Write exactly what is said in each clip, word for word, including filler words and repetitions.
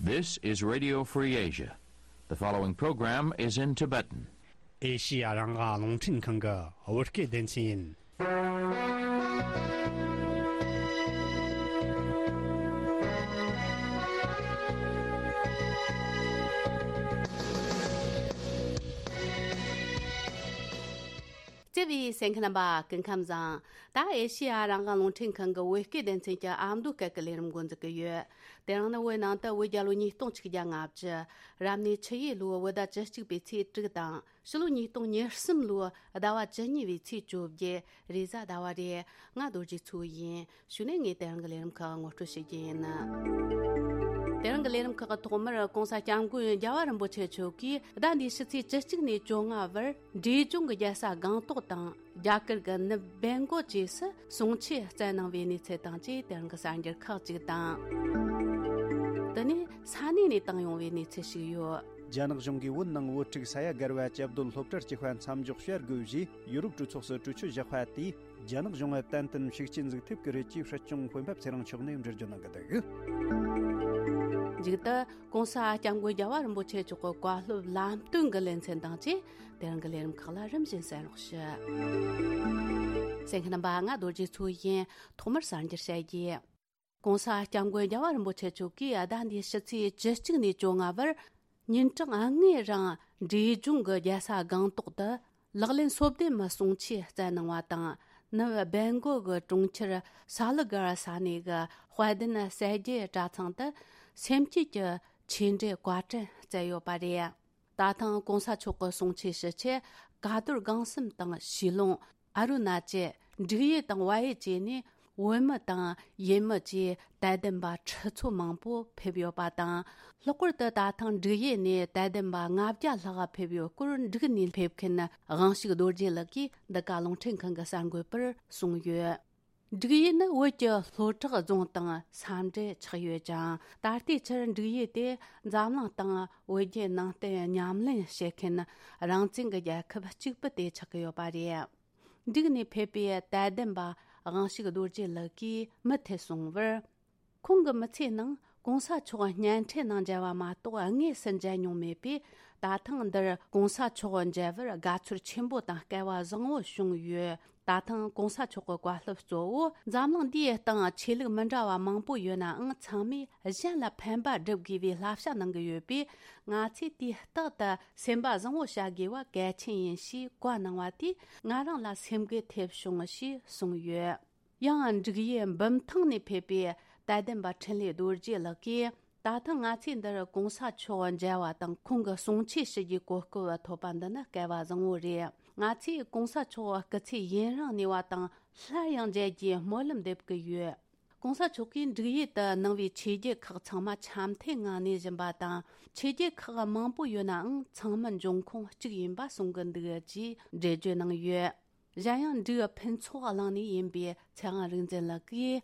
This is Radio Free Asia. The following program is in Tibetan. ཨེ་ཤི་ཡ་རང་དབང་རླུང་འཕྲིན་ཁང་གི་བོད་སྐད་སྡེ་ཚན་ཡིན། བརྩེ་བའི་གསན་མཁན་རྣམ་པ་སྐུ་ཁམས་བཟང་། ད་ཨེ་ཤི་ཡ་རང་དབང་རླུང་འཕྲིན་ཁང་གི་བོད་སྐད་སྡེ་ཚན་གྱི་ཨ་མདོ་སྐད་ཀྱི་ལས་རིམ་འགོ་འཛུགས་ཀྱི་ཡོད། དེ་རིང་ནི་བོད་ནང་དུ་བོད་རྒྱལ་ལོ་ཉིས་སྟོང་ཆིག་བརྒྱ་ལྔ་བཅུ། རབ་གནས་ཆུ་ཡོས་ལོའི་བོད་ཟླ་བཅུ་གཅིག་པའི་ཚེས་དྲུག་དང་། ཕྱི་ལོ་ཉིས་སྟོང་ཉེར་གསུམ་ལོའི་ཟླ་བ་བཅུ་གཉིས་པའི་ཚེས་བཅོ་བརྒྱད། རེས་གཟའ་ཟླ་བ་རེད། ང་རྡོ་རྗེ་མཚོ་ཡིན། གཞུག་ནས་ངས་དེ་རིང་གི་ལས་རིམ་ཁག་ངོ་སྤྲོད་བྱེད་རྒྱུ་ཡིན། དེ་རིང་གི་ལས་རིམ་ཁག་གི་ཐོག་མར་༸གོང་ས་༸སྐྱབས་མགོན་རྒྱལ་བ་རིན་པོ་ཆེ་མཆོག་གིས་ཟླ་འདིའི་ཕྱི་ཚེས་བཅུ་གཅིག་ནས་བཅོ་ལྔ་བར་འབྲས་ལྗོངས་ཀྱི་རྒྱལ་ས་སྒང་ཏོག་དང་རྒྱ་གར་གྱི་ནུབ་སྦེང་གོལ་བཅས་སུ་གསུང་ཆོས་སྩལ་གནང་བའི་གནས་ཚུལ་དང་བཅས་དེ་རིང་གི་གསར་འགྱུར་ཁག་ཅིག་དང་། དེ་ནས་ས་གནས་ནས་བཏང་ཡོང་བའི་གནས་ཚུལ་ཞིག་ཡོད། རྒྱ་ནག་གཞུང་གིས་བོད་ནང་བོད་ཕྲུག་ས་ཡ་བརྒལ་བ་བཅའ་སྡོད་སློབ་གྲྭར་བསྐྱོད་པ་མཚམས་འཇོག་བྱ་དགོས་ཞེས་ཡུ་རོབ་གྲོས་ཚོགས་སུ་གྲོས་ཆོད་བཞག་པ་དེས། རྒྱ་ནག་གཞུང་ལ་ཏན་ཏན་ཤུགས་རྐྱེན་འཛུགས་ཐུབ་ཀྱི་རེད་ཅེས་སྲིད་སྐྱོང་སྤེན་པ་ཚེ་རིང་མཆོག་ནས་འགྲེལ་བརྗོད་གནང་གི་འདུག། མཇུག་ཏུ་༸གོང་ས་༸སྐྱབས་མགོན་རྒྱལ་བ་རིན་པོ་ཆེ་མཆོག་གི་བཀའ་སློབ་ལམ་སྟོན་གྱི་ལེ་ཚན་དང་བཅས་དེ་རིང་གི་ལས་རིམ་ཁག་ལ་རིམ་བཞིན་གསན་རོགས་ཞུ། གསན་མཁན་རྣམ་པ། ང་རྡོ་རྗེ་མཚོ་ཡིན། ཐོག་མར་གསར་འགྱུར་བཤད་རྒྱུ། ༸གོང་ས་༸སྐྱབས་མགོན་རྒྱལ་བ་རིན་པོ་ཆེ་མཆོག་གིས་ཟླ་འདིའི་ཕྱི་ཚེས་བཅུ་གཅིག་ནས་བཅོ་ལྔ་བར་ཉིན་གྲངས་ལྔའི་རིང་འབྲས་ལྗོངས་ཀྱི་རྒྱལ་ས་སྒང་ཏོག་ཏུ་ལག་ལེན་སོ་བདུན་མ་གསུང་ཆོས་སྩལ་གནང་བ་དང་། ནུབ་སྦེང་གོལ་གྱི་གྲོང་ཁྱེར་ས་ལི་གར་ས་གནས་ཀྱི་དཔལ་ལྡན་གསལ་རྒྱལ་གྲྭ་ཚང་དུ་སེམས་བསྐྱེད་ཀྱི་ཆོས་འབྲེལ་བཀའ་དྲིན་སྩལ་ཡོད་པ་རེད། ད་ཐེངས་༸གོང་ས་མཆོག་གི་གསུང་ཆོས་ཞུ་ཆེད་ཀ་རྡོར་སྒང་གསུམ་དང་ཞི་ལོང་། ཨ་རུ་ན་ཅལ། འབྲུག་ཡུལ་དང་བལ་ཡུལ་བཅས་ནས་བོད་མི་དང་ཡུལ་མི་བཅས་དད་ལྡན་པ་ཁྲི་ཚོ་མང་པོ་ཕེབས་ཡོད་པ་དང་། ལྷག་པར་དུ་ད་ཐེངས་འབྲུག་ཡུལ་ནས་དད་ལྡན་པ་ལྔ་བརྒྱ་ལྷག་ཕེབས་ཡོད་སྐོར་འབྲུག་ནས་ཕེབས་མཁན་དབང་ཕྱུག་རྡོ་རྗེ་ལགས་ཀྱིས་འདི་ག་རླུང་འཕྲིན་ཁང་གི་གསར་འགོད་པར་གསུངས་ཡོད། འབྲུག་ཡུལ་ནི་བོད་ཀྱི་ལྷོ་བྲག་རྫོང་དང་ས་འབྲེལ་ཆགས་ཡོད་ཅིང་། ད་ལྟའི་ཆར་འབྲུག་ཡུལ་དེ་འཛམ་གླིང་སྟེང་བོད་བརྒྱུད་ནང་བསྟན་ཉམས་ལེན་བྱེད་མཁན་རང་བཙན་གྱི་རྒྱལ་ཁབ་གཅིག་པུ་དེ་ཆགས་ཀྱི་ཡོད་པ་རེད། འབྲུག་ནས་ཕེབས་པའི་དད་ལྡན་པ་དབང་ཕྱུག་རྡོ་རྗེ་ལགས་ཀྱིས་མུ་མཐུད་གསུངས་པར། ཁོང་གི་མི་ཚེའི་ནང་༸གོང་ས་མཆོག་བརྙན་འཕྲིན་ནང་མཇལ་བ་མ་གཏོགས་དངོས་སུ་མཇལ་མྱོང་མེད་པས། ད་ཐེངས་འདིར་༸གོང་ས་མཆོག་མཇལ་བར་དགའ་ཚོར་ཆེན་པོ་དང་སྐལ་བ་བཟང་བོ་བྱུང་ཡོད། ད་ཐེངས་༸གོང་ས་མཆོག་གི་བཀའ་སློབ་གཙོ་བོ་འཛམ་གླིང་འདིའི་སྟེང་ཆོས་ལུགས་མི་འདྲ་བ་མང་པོ་ཡོད་ནའང་ཚང་མས་གཞན་ལ་ཕན་པ་སྒྲུབ་དགོས་པའི་བསླབ་བྱ་གནང་གི་ཡོད་པས། ང་ཚོས་དུས་རྟག་ཏུ་སེམས་པ་བཟང་བོ་བྱ་དགོས་པ་གལ་ཆེན་ཡིན་ཞེས་བཀའ་གནང་བ་དེས་ང་རང་ལ་སེམས་འགུལ་ཐེབས་བྱུང་ཞེས་གསུངས་ཡོད། ཡང་འབྲུག་ཡུལ་འབུམ་ཐང་ནས་ཕེབས་པའི་དད་ལྡན་པ་འཕྲིན་ལས་རྡོ་རྗེ་ལགས་ཀྱིས། ད་ཐེངས་ང་ཚོས་འདིར་༸གོང་ས་མཆོག་མཇལ་བ་དང་ཁོང་གི་གསུང་ཆོས་ཞུ་རྒྱུའི་གོ་སྐབས་ཐོབ་པ་འདི་ནི་སྐལ་བ་བཟང་བོ་རེད། ང་ཚོས་༸གོང་ས་མཆོག་སྐུ་ཚེ་ཡུན་རིང་གནས་པ་དང་སླར་ཡང་མཇལ་རྒྱུའི་སྨོན་ལམ་འདེབས་ཀྱི་ཡོད། ༸གོང་ས་མཆོག་གིས་འབྲུག་ཡུལ་དུ་གནང་བའི་ཆོས་བརྒྱུད་ཁག་ཚང་མ་འཆམ་མཐུན་ངང་གནས་བཞིན་པ་དང་། ཆོས་བརྒྱུད་ཁག་མང་པོ་ཡོད་ནའང་ཚང་མ་འབྱུང་ཁུངས་གཅིག་ཡིན་པ་གསུང་གི་འདུག་ཅེས་འགྲེལ་བརྗོད་གནང་ཡོད། གཞན་ཡང་འབྲུག་ཕུན་ཚོགས་གླིང་ནས་ཡིན་པའི་ཚེ་དབང་རིག་འཛིན་ལགས་ཀྱིས།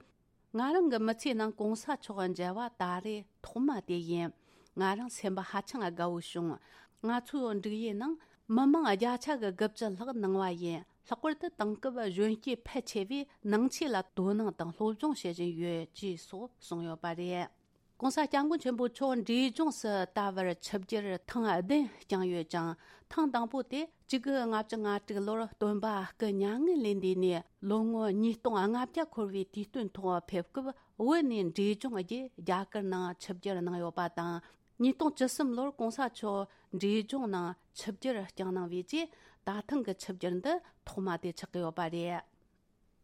ང་རང་གི་མི་ཚེའི་ནང་༸གོང་ས་མཆོག་མཇལ་བ་ད་རེས་ཐོག་མ་དེ་ཡིན། ང་རང་སེམས་པ་ཧ་ཅང་དགའ་བོ་བྱུང་། ང་ཚོའི་འབྲུག་ཡུལ་ནང་མི་མང་བརྒྱ་ཆ་གི་དགུ་བཅུ་ལྷག་གནང་བ་ཡིན། ལྷག་པར་དུ་དེང་སྐབས་གཞོན་སྐྱེས་ཕལ་ཆེ་བས་ནང་ཆོས་ལ་དོ་སྣང་དང་སློབ་སྦྱོང་བྱེད་བཞིན་ཡོད་ཅེས་སོགས་གསུངས་ཡོད་པ་རེད། ༸གོང་ས་༸སྐྱབས་མགོན་ཆེན་པོ་མཆོག་འབྲས་ལྗོངས་སུ་ད་བར་ཆིབས་བསྒྱུར་ཐེངས་བདུན་བསྐྱངས་ཡོད་ཅིང་། ཐེངས་དང་པོ་དེ་གཅིག་དགུ་ལྔ་བཅུ་ང་དྲུག་ལོར་སྟོན་པ་སྐུ་མྱ་ངན་ལས་འདས་ནས་ལོ་ངོ་ཉིས་སྟོང་ལྔ་བརྒྱ་འཁོར་བའི་དུས་སྟོན་ཐོག་ཕེབས་སྐབས། བོད་ནས་འབྲས་ལྗོངས་བརྒྱུད་རྒྱ་གར་ནང་ཆིབས་བསྒྱུར་གནང་ཡོད་པ་དང་། ཉིས་སྟོང་བཅུ་གསུམ་ལོར་༸གོང་ས་མཆོག་འབྲས་ལྗོངས་ནང་ཆིབས་བསྒྱུར་བསྐྱངས་གནང་བའི་རྗེས། ད་ཐེངས་ཀྱི་ཆིབས་བསྒྱུར་འདི་ཐོག་མ་དེ་ཆགས་ཀྱི་ཡོད་པ་རེད།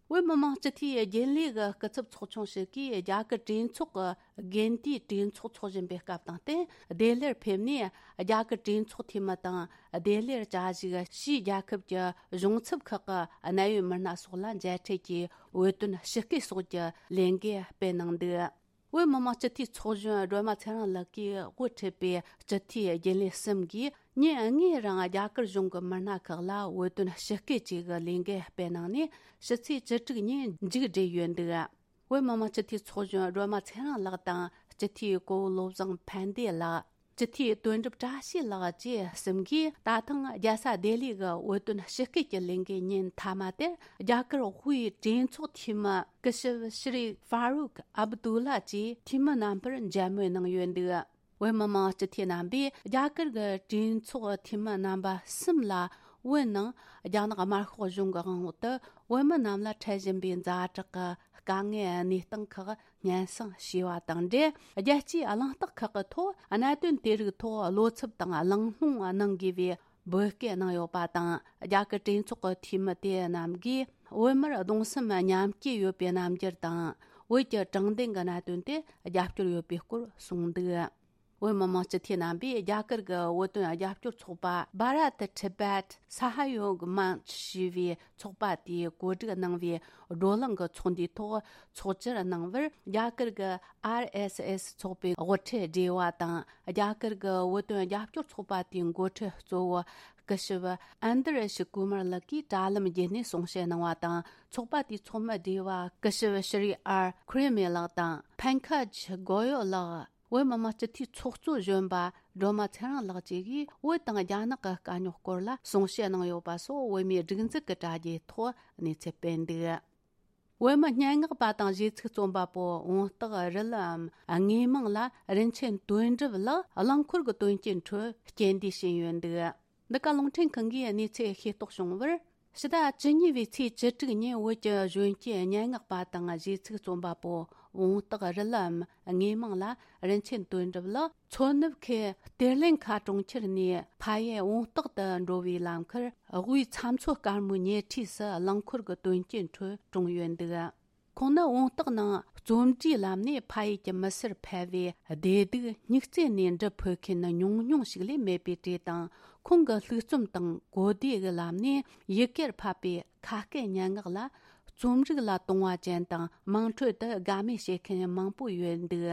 བོད་མི་མང་སྤྱི་འཐུས་རྒྱུན་ལས་ཀྱི་སྐུ་ཚབ་ཚོགས་ཆུང་ཞིག་གིས་རྒྱ་གར་གྲོས་ཚོགས་ཀྱི་དགེ་འདུན་གྲོས་ཚོགས་འཚོགས་བཞིན་པའི་སྐབས་དང་བསྟུན། བདེ་ལེགས་ཕེབས་ནས་རྒྱ་གར་གྲོས་ཚོགས་འཐུས་མི་དང་བདེ་ལེགས་བཅའ་བཞུགས་ཕྱིའི་རྒྱལ་ཁབ་ཀྱི་གཞུང་ཚབ་ཁག་གི་གནད་ཡོད་མི་སྣ་སོགས་ལ་མཇལ་འཕྲད་ཀྱིས་འོས་བསྟུན་ཞུ་སྐུལ་སོགས་ཀྱི་ལས་འགུལ་སྤེལ་གནང་འདུག། བོད་མི་མང་སྤྱི་འཐུས་ཚོགས་གཞོན་སྒྲོལ་མ་ཚེ་རིང་ལགས་ཀྱིས་དབུ་ཁྲིད་པའི་སྤྱི་འཐུས་རྒྱུན་ལས་གསུམ་གྱིས་ཉིན་ལྔའི་རིང་རྒྱ་གར་གཞུང་གི་མི་སྣ་ཁག་ལ་འོས་བསྟུན་ཞུ་སྐུལ་བཅས་ཀྱི་ལས་འགུལ་སྤེལ་གནང་ནས། ཕྱི་ཚེས་བཅུ་དྲུག་ཉིན་མཇུག་བསྒྲིལ་ཡོད་འདུག། བོད་མི་མང་སྤྱི་འཐུས་ཚོགས་གཞོན་སྒྲོལ་མ་ཚེ་རིང་ལགས་དང་སྤྱི་འཐུས་གོ་བོ་བློ་བཟང་ཕན་བདེ་ལགས། སྤྱི་འཐུས་དོན་གྲུབ་བཀྲ་ཤིས་ལགས་བཅས་གསུམ་གྱིས་ད་ཐེངས་རྒྱལ་ས་ལྡི་ལི་གི་འོས་བསྟུན་ཞུ་སྐུལ་གྱི་ལས་འགུལ་ཉིན་མཐའ་མ་དེར་རྒྱ་གར་དབུས་གྲོས་ཚོགས་འཐུས་མི་སྐུ་ཞབས་ཤྲི་ཧྥ་རུག་ཨབ་དུ་ལ་བཅས་འཐུས་མི་རྣམ་པར་མཇལ་མོལ་གནང་ཡོད་འདུག། བོད་མི་མང་སྤྱི་འཐུས་རྣམ་པས་རྒྱ་གར་གྱི་གྲོས་ཚོགས་འཐུས་མི་རྣམ་པ་གསུམ་ལ། བོད་ནང་རྒྱ་ནག་དམར་ཤོག་གཞུང་གི་དབང་འོག་ཏུ་བོད་མི་རྣམས་ལ་འཕྲད་བཞིན་པའི་ཛ་དྲག་གི་དཀའ་ངལ་གནས་སྟངས་ཁག་སྙན་སེང་ཞུས་པ་དང་འབྲེལ། རྒྱལ་སྤྱིའི་གླེང་སྟེགས་ཁག་གི་ཐོག་གནད་དོན་དེ་རིགས་ཐོག་བློ་འཚབ་དང་གླེང་སློང་གནང་དགོས་པའི་འབོད་སྐུལ་གནང་ཡོད་པ་དང་། རྒྱ་གར་གྲོས་ཚོགས་ཀྱི་འཐུས་མི་དེ་རྣམས་ཀྱིས་བོད་མིར་གདུང་སེམས་མཉམ་སྐྱེད་ཡོད་པའི་རྣམ་འགྱུར་དང་། བོད་ཀྱི་དྲང་བདེན་གྱི་གནད་དོན་དེ་རྒྱབ་སྐྱོར་ཡོད་པའི་སྐོར་གསུངས་འདུག་བོད་མི་མང་སྤྱི་འཐུས་རྣམ་པས་རྒྱ་གར་གྱི་བོད་དོན་རྒྱབ་སྐྱོར་ཚོགས་པ་Bharat Tibet Sahayog Manch ཞེས་པའི་ཚོགས་པ་དེས་གོ་སྒྲིག་གནང་བའི་བགྲོ་གླེང་གི་ཚོགས་འདུའི་ཐོག་ཚོགས་བཅར་གནང་བར། རྒྱ་གར་གྱི་ཨར་ཨེས་ཨེས་ཚོགས་པའི་དབུ་ཁྲིད་སྒྲེ་བ་དང་། རྒྱ་གར་གྱི་བོད་དོན་རྒྱབ་སྐྱོར་ཚོགས་པ་དེའི་འགོ་ཁྲིད་གཙོ་བོ་སྐུ་ཞབས་ཨན་དར་ཤ་ཀུ་མར་ལགས་ཀྱིས་དྲ་ལམ་བརྒྱུད་ནས་གསུང་བཤད་གནང་བ་དང་། ཚོགས་པ་དེའི་ཚོགས་མི་སྒྲེ་བ་སྐུ་ཞབས་ཤྲི་ཨར་ཁུ་རེ་མེ་ལགས་དང་། ཕན་ཁ་ཇི་གོ་ཡོ་ལགས། བོད་མི་མང་སྤྱི་འཐུས་ཚོགས་གཙོ་གཞོན་པ་སྒྲོལ་མ་ཚེ་རིང་ལགས་བཅས་ཀྱིས་བོད་དང་རྒྱ་ནག་གི་དཀའ་རྙོག་སྐོར་ལ་གསུང་བཤད་གནང་ཡོད་པ་སོགས། བོད་མིའི་སྒྲིག་འཛུགས་ཀྱི་དྲ་རྒྱའི་ཐོག་གནས་ཚུལ་སྤེལ་འདུག་བོད་མི་སྙན་ངག་པ་དང་གཞས་ཚིག་རྩོམ་པ་པོ་བོང་སྟག་རི་ལམ་དངོས་མིང་ལ་རིན་ཆེན་དོན་གྲུབ་ལགས་རླངས་འཁོར་གྱི་དོན་རྐྱེན་ཁྲོད་རྐྱེན་འདས་ཕྱིན་ཡོད་འདུག་འདི་ག་རླུང་འཕྲིན་ཁང་གིས་གནས་ཚུལ་ཤེས་རྟོགས་བྱུང་བར། ཕྱི་ཟླ་བཅུ་གཉིས་པའི་ཚེས་བཅུ་དྲུག་ཉིན་བོད་ཀྱི་གཞོན་སྐྱེས་སྙན་ངག་པ་དང་གཞས་ཚིག་རྩོམ་པ་པོ་བོང་སྟག་རི་ལམ་དངོས་མིང་ལ་རིན་ཆེན་དོན་གྲུབ་ལགས་མཚོ་ནུབ་ཁུལ་གཏེར་ལེན་ཁ་གྲོང་ཁྱེར་ནས་ཕ་ཡུལ་བོང་སྟག་ཏུ་འགྲོ་བའི་ལམ་ཁར་དབུས་ཚྭ་མཚོ་དཀར་མོའི་ཉེ་འཁྲིས་སུ་རླངས་འཁོར་གྱི་དོན་རྐྱེན་ཁྲོད་གྲོངས་ཡོད་འདུག་ཁོང་ནི་བོང་སྟག་ནང་རྩོམ་འབྲིའི་ལམ་ནས་ཕ་ཡུལ་གྱི་མི་སེར་ཕལ་བའི་བདེ་སྡུག་སྙིང་བརྩེ་ནས་འབྲི་ཕོད་མཁན་ཉུང་ཉུང་ཞིག་ལས་མེད་པའི་གྲས་དང་། ཁོང་གི་ལྷུག་རྩོམ་དང་གོ་བདེ་གི་ལམ་ནས་ཡི་གེར་ཕབ་པའི་ཁ་སྐད་སྙན་ངག་ལ། རྩོམ་རིག་ལ་དུང་བ་ཅན་དང་དམངས་ཁྲོད་དུ་དགའ་མོས་བྱེད་མཁན་མང་པོ་ཡོད་འདུག་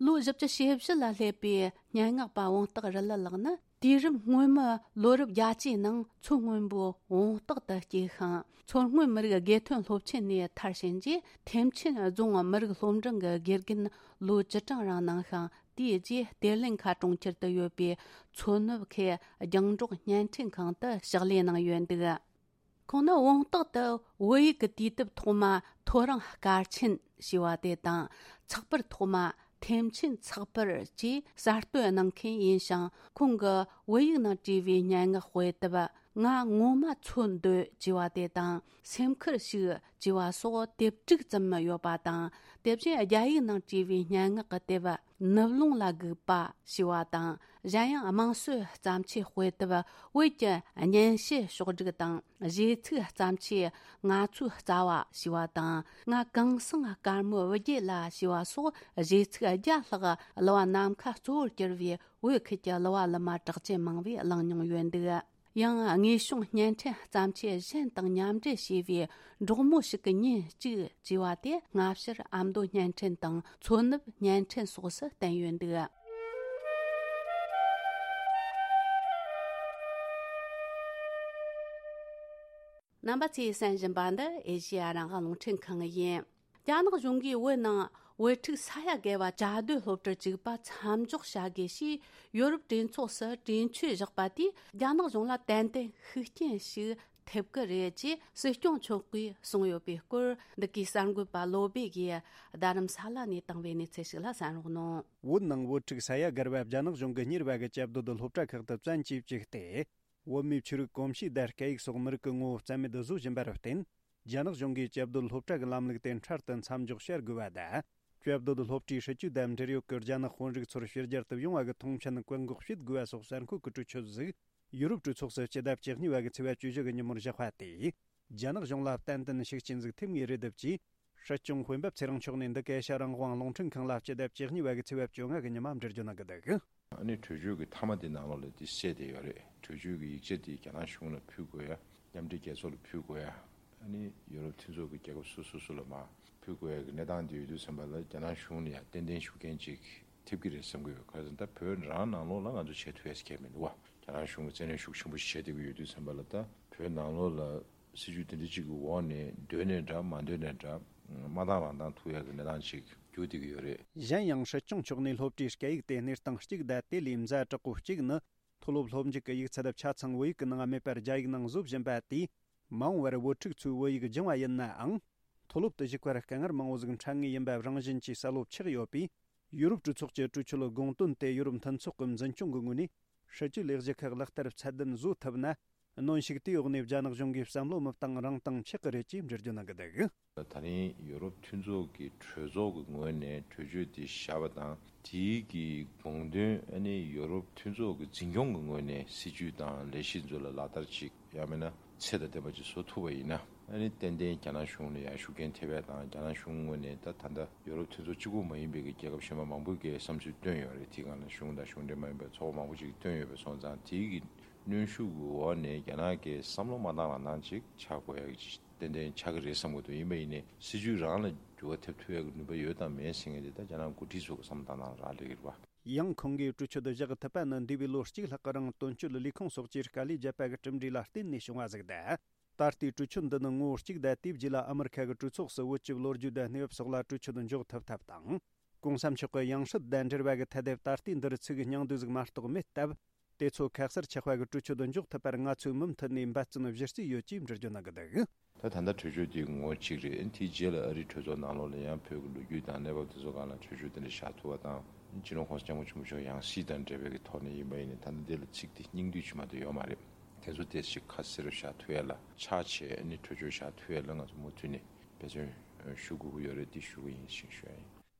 ལོ་བཞི་བཅུ་ཞེ་བཞི་ལ་སླེབས་པའི་སྙན་ངག་པ་བོང་སྟག་རི་ལི་ལགས་ནི། དུས་རབས་སྔོན་མའི་ལོ་རབས་བརྒྱད་ཅུའི་ནང་མཚོ་སྔོན་པོའི་བོང་སྟག་ཏུ་སྐྱེས་ཤིང་། མཚོ་སྔོན་མི་རིགས་དགེ་ཐོན་སློབ་ཆེན་ནས་མཐར་ཕྱིན་རྗེས། ཐེམ་ཆེན་རྫོང་མི་རིགས་སློབ་འབྲིང་གི་དགེ་རྒན་ལོ་བཅུ་གྲངས་རིང་གནང་ཤིང་། དེའི་རྗེས་གཏེར་ལེན་ཁ་གྲོང་ཁྱེར་དུ་ཡོད་པའི་མཚོ་ནུབ་ཁུལ་རྒྱང་སྒྲོག་བརྙན་འཕྲིན་ཁང་དུ་ཕྱག་ལས་གནང་ཡོད་འདུག་ཁོང་ནི་བོང་སྟག་ཏུ་བོད་ཡིག་གི་དུས་དེབ་ཐོག་མ་ཐོ་རངས་སྐར་ཆེན་ཞེས་པ་དེ་དང་། ཚགས་པར་ཐོག་མ་ཐེམ་ཆེན་ཚགས་པར་གྱིས་གསར་གཏོད་གནང་མཁན་ཡིན་ཞིང་། ཁོང་གི་བོད་ཡིག་ནང་བྲིས་པའི་སྙན་ངག་དཔེ་དེབ་ང་ངོ་མ་འཚོལ་འདོད་ཅེས་པ་དེ་དང་། སེམས་ཁུར་ཞིག་ཅེས་པ་སོགས་དེབ་དྲུག་ཙམ་ཡོད་པ་དང་། དེ་བཞིན་རྒྱ་ཡིག་ནང་བྲིས་པའི་སྙན་ངག་གི་དེབ་ནུབ་ལུང་ལ་སྒུག་པ་ཞེས་པ་དང་། གཞན་ཡང་དམངས་སྲོལ་བརྩམས་ཆོས་དཔེ་དེབ་བོད་ཀྱི་སྙན་ཞུ་ཕྱོགས་བསྒྲིགས་དང་། གཞས་ཚིག་བརྩམས་ཆོས་ང་ཚོའི་རྩ་བ་ཞེས་པ་དང་། ང་གངས་སེང་དཀར་མོའི་བུ་རྒྱུད་ལ་ཞེས་པ་སོགས་གཞས་ཚིག་བརྒྱ་ལྷག་གླུ་བ་ནམ་མཁའ་གཙོ་བོར་གྱུར་བའི་བོད་ཁུལ་གྱི་གླུ་བ་གླུ་མ་གྲགས་ཅན་མང་བས་བླངས་མྱོང་ཡོད་འདུག་ཡང་དངོས་བྱུང་བརྙན་འཕྲིན་བརྩམས་ཆོས་གཞན་དང་མཉམ་འབྲེལ་བྱས་པའི་འབྲོག་མོ་ཞིག་གི་ཉིན་གཅིག་ཅེས་པ་དེ་སྔ་ཕྱིར་ཨ་མདོ་བརྙན་འཕྲིན་དང་མཚོ་ནུབ་བརྙན་འཕྲིན་སོགས་སུ་བསྟན་ཡོད་འདུག་རྣམ་པ་ཚོས་གསན་བཞིན་པ་འདི་ཨེ་ཤེ་ཡ་རང་དབང་རླུང་འཕྲིན་ཁང་ཡིན། རྒྱ་ནག་གཞུང་གིས་བོད་ནང་བོད་ཕྲུག་ས་ཡ་བརྒལ་བ་བཅའ་སྡོད་སློབ་གྲྭར་བཅུག་པ་མཚམས་འཇོག་བྱ་དགོས་ཞེས་ཡོ་རོབ་གྲོས་ཚོགས་སུ་གྲོས་ཆོད་བཞག་པ་དེས་རྒྱ་ནག་གཞུང་ལ་ཏན་ཏན་ཤུགས་རྐྱེན་ཞིག་ཐེབས་ཀྱི་རེད་ཅེས་སྲིད་སྐྱོང་མཆོག་གིས་གསུངས་ཡོད་པའི་སྐོར། འདི་གའི་གསར་འགོད་པ་བློ་སྦེ་གིས་རྡ་རམ་ས་ལ་ནས་བཏང་བའི་གནས་ཚུལ་ཞིག་ལ་གསན་རོགས་གནང་། བོད་ནང་བོད་ཕྲུག་ས་ཡ་བརྒལ་བ་རྒྱ་ནག་གཞུང་གིས་གཉེར་བ་གི་བཅའ་སྡོད་སློབ་གྲྭ་ཁག་ཏུ་བཙན་གྱིས་བཅུག་སྟེ། བོད་མིའི་ཆོས་རིག་གོམས་གཤིས་དང་སྐད་ཡིག་སོགས་མི་རིགས་ཀྱི་ངོ་བོ་རྩ་མེད་བཟོ་བཞིན་པར་བརྟེན། རྒྱ་ནག་གཞུང་གིས་བཅའ་སྡོད་སློབ་གྲྭ་གི་ལམ་ལུགས་དེ་འཕྲལ་དུ་མཚམས་འཇོག་བྱ་དགོས་པ་དང་། བཅའ་སྡོད་སློབ་གྲྭའི་སྲིད་ཇུས་དང་འབྲེལ་ཡོད་ཀྱི་རྒྱ་ནག་དཔོན་རིགས་ཚོར་ཕྱི་རྒྱལ་དུ་ཡོང་བ་གི་མཐོང་མཆན་བཀག་འགོག་བྱེད་དགོས་པ་སོགས་གསར་འགོད་ཀྱི་གྲོས་ཆོད་ཟིག་ཡུ་རོབ་གྲོས་ཚོགས་སུ་སྤྱི་ཟླ་བཅུ་གཉིས་པ་གི་ཚེས་པ་བཅུ་བཞི་གི་ཉིན་མོར་བཞག་པ་དེས། རྒྱ་ནག་གཞུང་ལ་ཏན་ཏན་ཤུགས་རྐྱེན་ཟིག་ཐེབས་ངེས་རེད་འདུག་ཅེས། སྲིད་སྐྱོང་དཔོན་པོ་ཚེ་རིང་མཆོག་ནས་འདི་ག་ཨེ་ཤ་ཡ་རང་དབང་རླུང་འཕྲིན་ཁང་ལ་སྤྱི་ཟླ་བཅུ་གཉིས་པ་གི་ཚེས་པ་བཅོ་ལྔ་གི་ཉི་མ་འགྲེལ་བརྗོད་གནང་གི་འདུག་ཨ་ནི་གྲོས་ཆོད་ཀྱི་མཐའ་མ་དེ་ནང་ལོགས་ལ་དེ་གསལ་བསྡད་ཡོད་རེད། གྲོས་ཆོད་ཀྱི་ཡིག་ཆ་དེ་རྒྱ་ནག་གཞུང་ལ་ཕུལ་དགོས་ཡ། མཉམ་འབྲེལ་རྒྱལ་ཚོགས་ལ་ཕུལ་དགོས་ཡ། ཨ་ནི་ཡོ་རོབ་མཐུན་ཚོགས་ཀྱི་རྒྱལ་ཁབ་སོ་སོ་སོ་ལ་མར་ཕུལ་དགོས་ཡ་གི་གནས་སྟངས་དེ་ཡོད་དུས་ཙམ་པ་ལ་རྒྱ་ནག་གཞུང་ལ་ཡང་ཏན་ཏན་ཤུགས་རྐྱེན་ཅིག་ཐེབས་ཀྱི་རེད་བསམ་གྱི་ཡོད། ག་རེ་ཟེར་ན་ད་བོད་རང་ནང་ལོགས་ལ་ང་ཚོ་བྱེད་ཐུབ་ཡ་ཟེར་མཁན་མི་འདུག་བ། རྒྱ་ནག་གཞུང་གིས་བཙན་གནོན་ཤུགས་ཆེན་པོ་ཞིག་བྱས་བསྡད་ཀྱི་ཡོད་དུས་ཙམ་པ་ལ་ད་བོད་ནང་ལོགས་ལ་སྲིད་ཇུས་དེ་འདྲ་ཅིག་གི་འོག་ནས་འདོད་ནའི་འདྲ་མ་འདོད་ནའི་འདྲ་མ་བཏང་རང་བཏང་ཐུབ་ཡ་གི་གནས་སྟངས་ཅིག་འགྱུར་བསྡད་ཀྱི་ཡོད་རེད། གཞན་ཡང་སྲིད་སྐྱོང་མཆོག་ནས་སློབ་གྲྭའི་སྐད་ཡིག་དེ་གནས་སྟངས་གཅིག་དང་དེ་ལས་ཛ་དྲག་པོ་གཅིག་ནི། མཐོ་སློབ་སློབ་འཇུག་གི་ཡིག་ཚད་ཆ་ཚང་བོད་ཡིག་གི་ནང་མེད་པར་རྒྱ་ཡིག་ནང་བཟོ་བཞིན་པ་དེས། མ་འོངས་པར་བོད་ཕྲུག་ཚོས་བོད་ཡིག་སྦྱང་བ་ཡིན་ནའང་། མཐོ་སློབ་ཏུ་ཞུགས་པར་དཀའ་ངལ་མང་བོ་ཟིག་འཕྲད་ངེས་ཡིན་པ་རང་བཞིན་གྱིས་གསལ་བོ་ཆགས་ཡོད་པས། ཡུ་རོབ་གྲོས་ཚོགས་ཀྱི་གྲོས་ཆོད་དགོངས་དོན་དེ་ཡུ་རོབ་མཐུན་ཚོགས་ཀྱི་འཛིན་སྐྱོང་གི་ངོས་ནས་སྲིད་ཇུས་ལས་གཞི་ཁག་ལག་བསྟར་ཚད་ལྡན་བཟོ་ཐུབ་ན། གནོན་ཤུགས་དེའི་འོག་ནས་རྒྱ་ནག་གཞུང་གིས་བསམ་བློ་མི་བཏང་རང་བཏང་ཆགས་ཀྱི་རེད་ཅེས་འགྲེལ་བརྗོད་གནང་གི་འདུག། ད་རིང་ཡུ་རོབ་མཐུན་ཚོགས་ཀྱི་གྲོས་ཚོགས་ཀྱི་ངོས་ནས་གྲོས་ཆོད་དེ་བཞག་པ་དང་། དེའི་གི་དགོངས་དོན་ཨ་ནི་ཡུ་རོབ་མཐུན་ཚོགས་ཀྱི་འཛིན་སྐྱོང་གི་ངོས་ནས་སྲིད་ཇུས་དང་ལས་གཞི་ཚོ་ལ་ལག་བསྟར་ཅིག་ཡང་མིན་ན་ཚད་དང་ལྡན་པ་ཅིག་བཟོ་ཐུབ་པ་ཡིན་ན། ཨ་ནི་ཏན་ཏན་རྒྱ་ནག་གཞུང་ལ་ཡང་ཤུགས་རྐྱེན་ཐེབས་ཡ་དང་། རྒྱ་ནག་གཞུང་ངོས་ནས་ད་ད་ལྟ་ཡུ་རོབ་མཐུན་ཚོགས་གཅིག་པུ་མ་ཡིན་པའི་གི་རྒྱལ་ཁབ་གཞན་པ་མང་པོས་གི་བསམ་ཚུལ་བཏོན་ཡོད་རེད། དེའི་སྒང་ལ་གཞུང་དང་གཞུང་འབྲེལ་མ་ཡིན་པའི་ཚོགས་པ་མང་པོ་ཅིག་བཏོན་ཡོད་པ་སོང་ཙང་། དེའི་གི་གནོན་ཤུགས་ཀྱི་འོག་ནས་རྒྱ་ནག་གིས་བསམ་བློ་མ་བཏང་རང་བཏང་ཅིག་ཆགས་དགོས་ཡ་གི་ཏན་ཏན་ཆགས་ཀྱི་རེད་བསམ་གྱི་འདུག། ཡིན་པ་ཡིན་ནའི་སྲིད་ཇུས་རང་ལ་འགྱུར་བ་ཐེབས་ཐུབ་ཡ་གི་ནུས་པ་ཡོད་དང་མེད་ཟེར་མཁན་དེ་ད་རྒྱ་ནག་འགོ་ཁྲིད་ཚོ་གི་བསམ་བློ་བཏང་སྟངས་རག་ལས་ཀྱི་རེད་བ། ཡང་ཁོང་གིས་གྲོས་ཆོད་བཞག་ཐུབ་པ་ནི་འདས་པའི་ལོ་གཅིག་ལྷག་གི་རིང་དོན་གཅོད་ལས་ཁུངས་སོགས་ཀྱིས་དཀའ་ལས་བརྒྱབ་པ་གི་གྲུབ་འབྲས་ལ་བརྟེན་ནས་བྱུང་བ་ཟིག་སྟེ། ད་ལྟའི་གྲོས་ཆོད་འདི་ནི་ངོ་བོ་གཅིག་དང་། དེའི་རྗེས་ལ་ཨ་མི་རི་ཁ་གི་གྲོས་ཚོགས་སུ་བོད་ཀྱི་ལོ་རྒྱུས་དང་གནས་བབ་སོགས་ལ་གྲོས་ཆོད་འཇོག་ཐུབ་ཐབས་དང་། གོང་ས་མཆོག་གི་ཡང་སྲིད་དང་འབྲེལ་བ་གི་ཐད་དེ་ད་ལྟའི་འདིར་ཚིག་གི་སྙིང་བསྡུས་ཟིག་མ་གཏོགས་མེད་སྟབས། དེ་ཚོ་ཁ་གསལ་ཆགས་པ་གི་གྲོས་ཆོད་འཇོག་ཐུབ་པར་ང་ཚོས་མུ་མཐུད་ནས་འབད་བརྩོན་གཞི་རྩའི་ཡོད་ཅེས་འགྲེལ་བརྗོད་གནང་གི་འདུག། ད་ད་ལྟ་གྲོས་ཆོད་དེ་ངོ་གཅིག་རེད། དེའི་རྗེས་ལ་ཨ་རིའི་གྲོས་ཚོགས་ནང་ལོགས་ལ་ཡང་བོད་ཀྱི་ལོ་རྒྱུས་དང་གནས་བབ་དེ་ཚོ་སྒང་ལ་གྲོས་ཆོད་དེ་འདྲ་བཞག་ཐུབ་པ་དང་། སྤྱི་ནོར་༸གོང་ས་༸སྐྱབས་མགོན་ཆེན་པོ་མཆོག་ཡང་སྲིད་དང་འབྲེལ་བའི་གི་ཐོག་ནས་ཡིན་པ་ཡིན་ནའི། ད་ལྟ་འདི་ལ་ཚིག་དེ་སྙིང་བསྡུས་ཅིག་མ་གཏོགས་ཡོད་མ་རེད། དེ་ཚོ་དེ་ཞིག་ཁ་གསལ་རུ་བཞག་ཐུབ་ཡ་ལ་ཕྱག་བྱས་ནས་གྲོས་ཆོད་བཞག་ཐུབ་ཡ་ལ་ང་ཚོ་མུ་མཐུད་ནས་འབད་བརྩོན་ཞུ་དགོས་ཀྱི་ཡོད་རེད། དེ་ཞུ་གི་ཡིན་ཞེས་ཞུ་ཡ་ཡིན།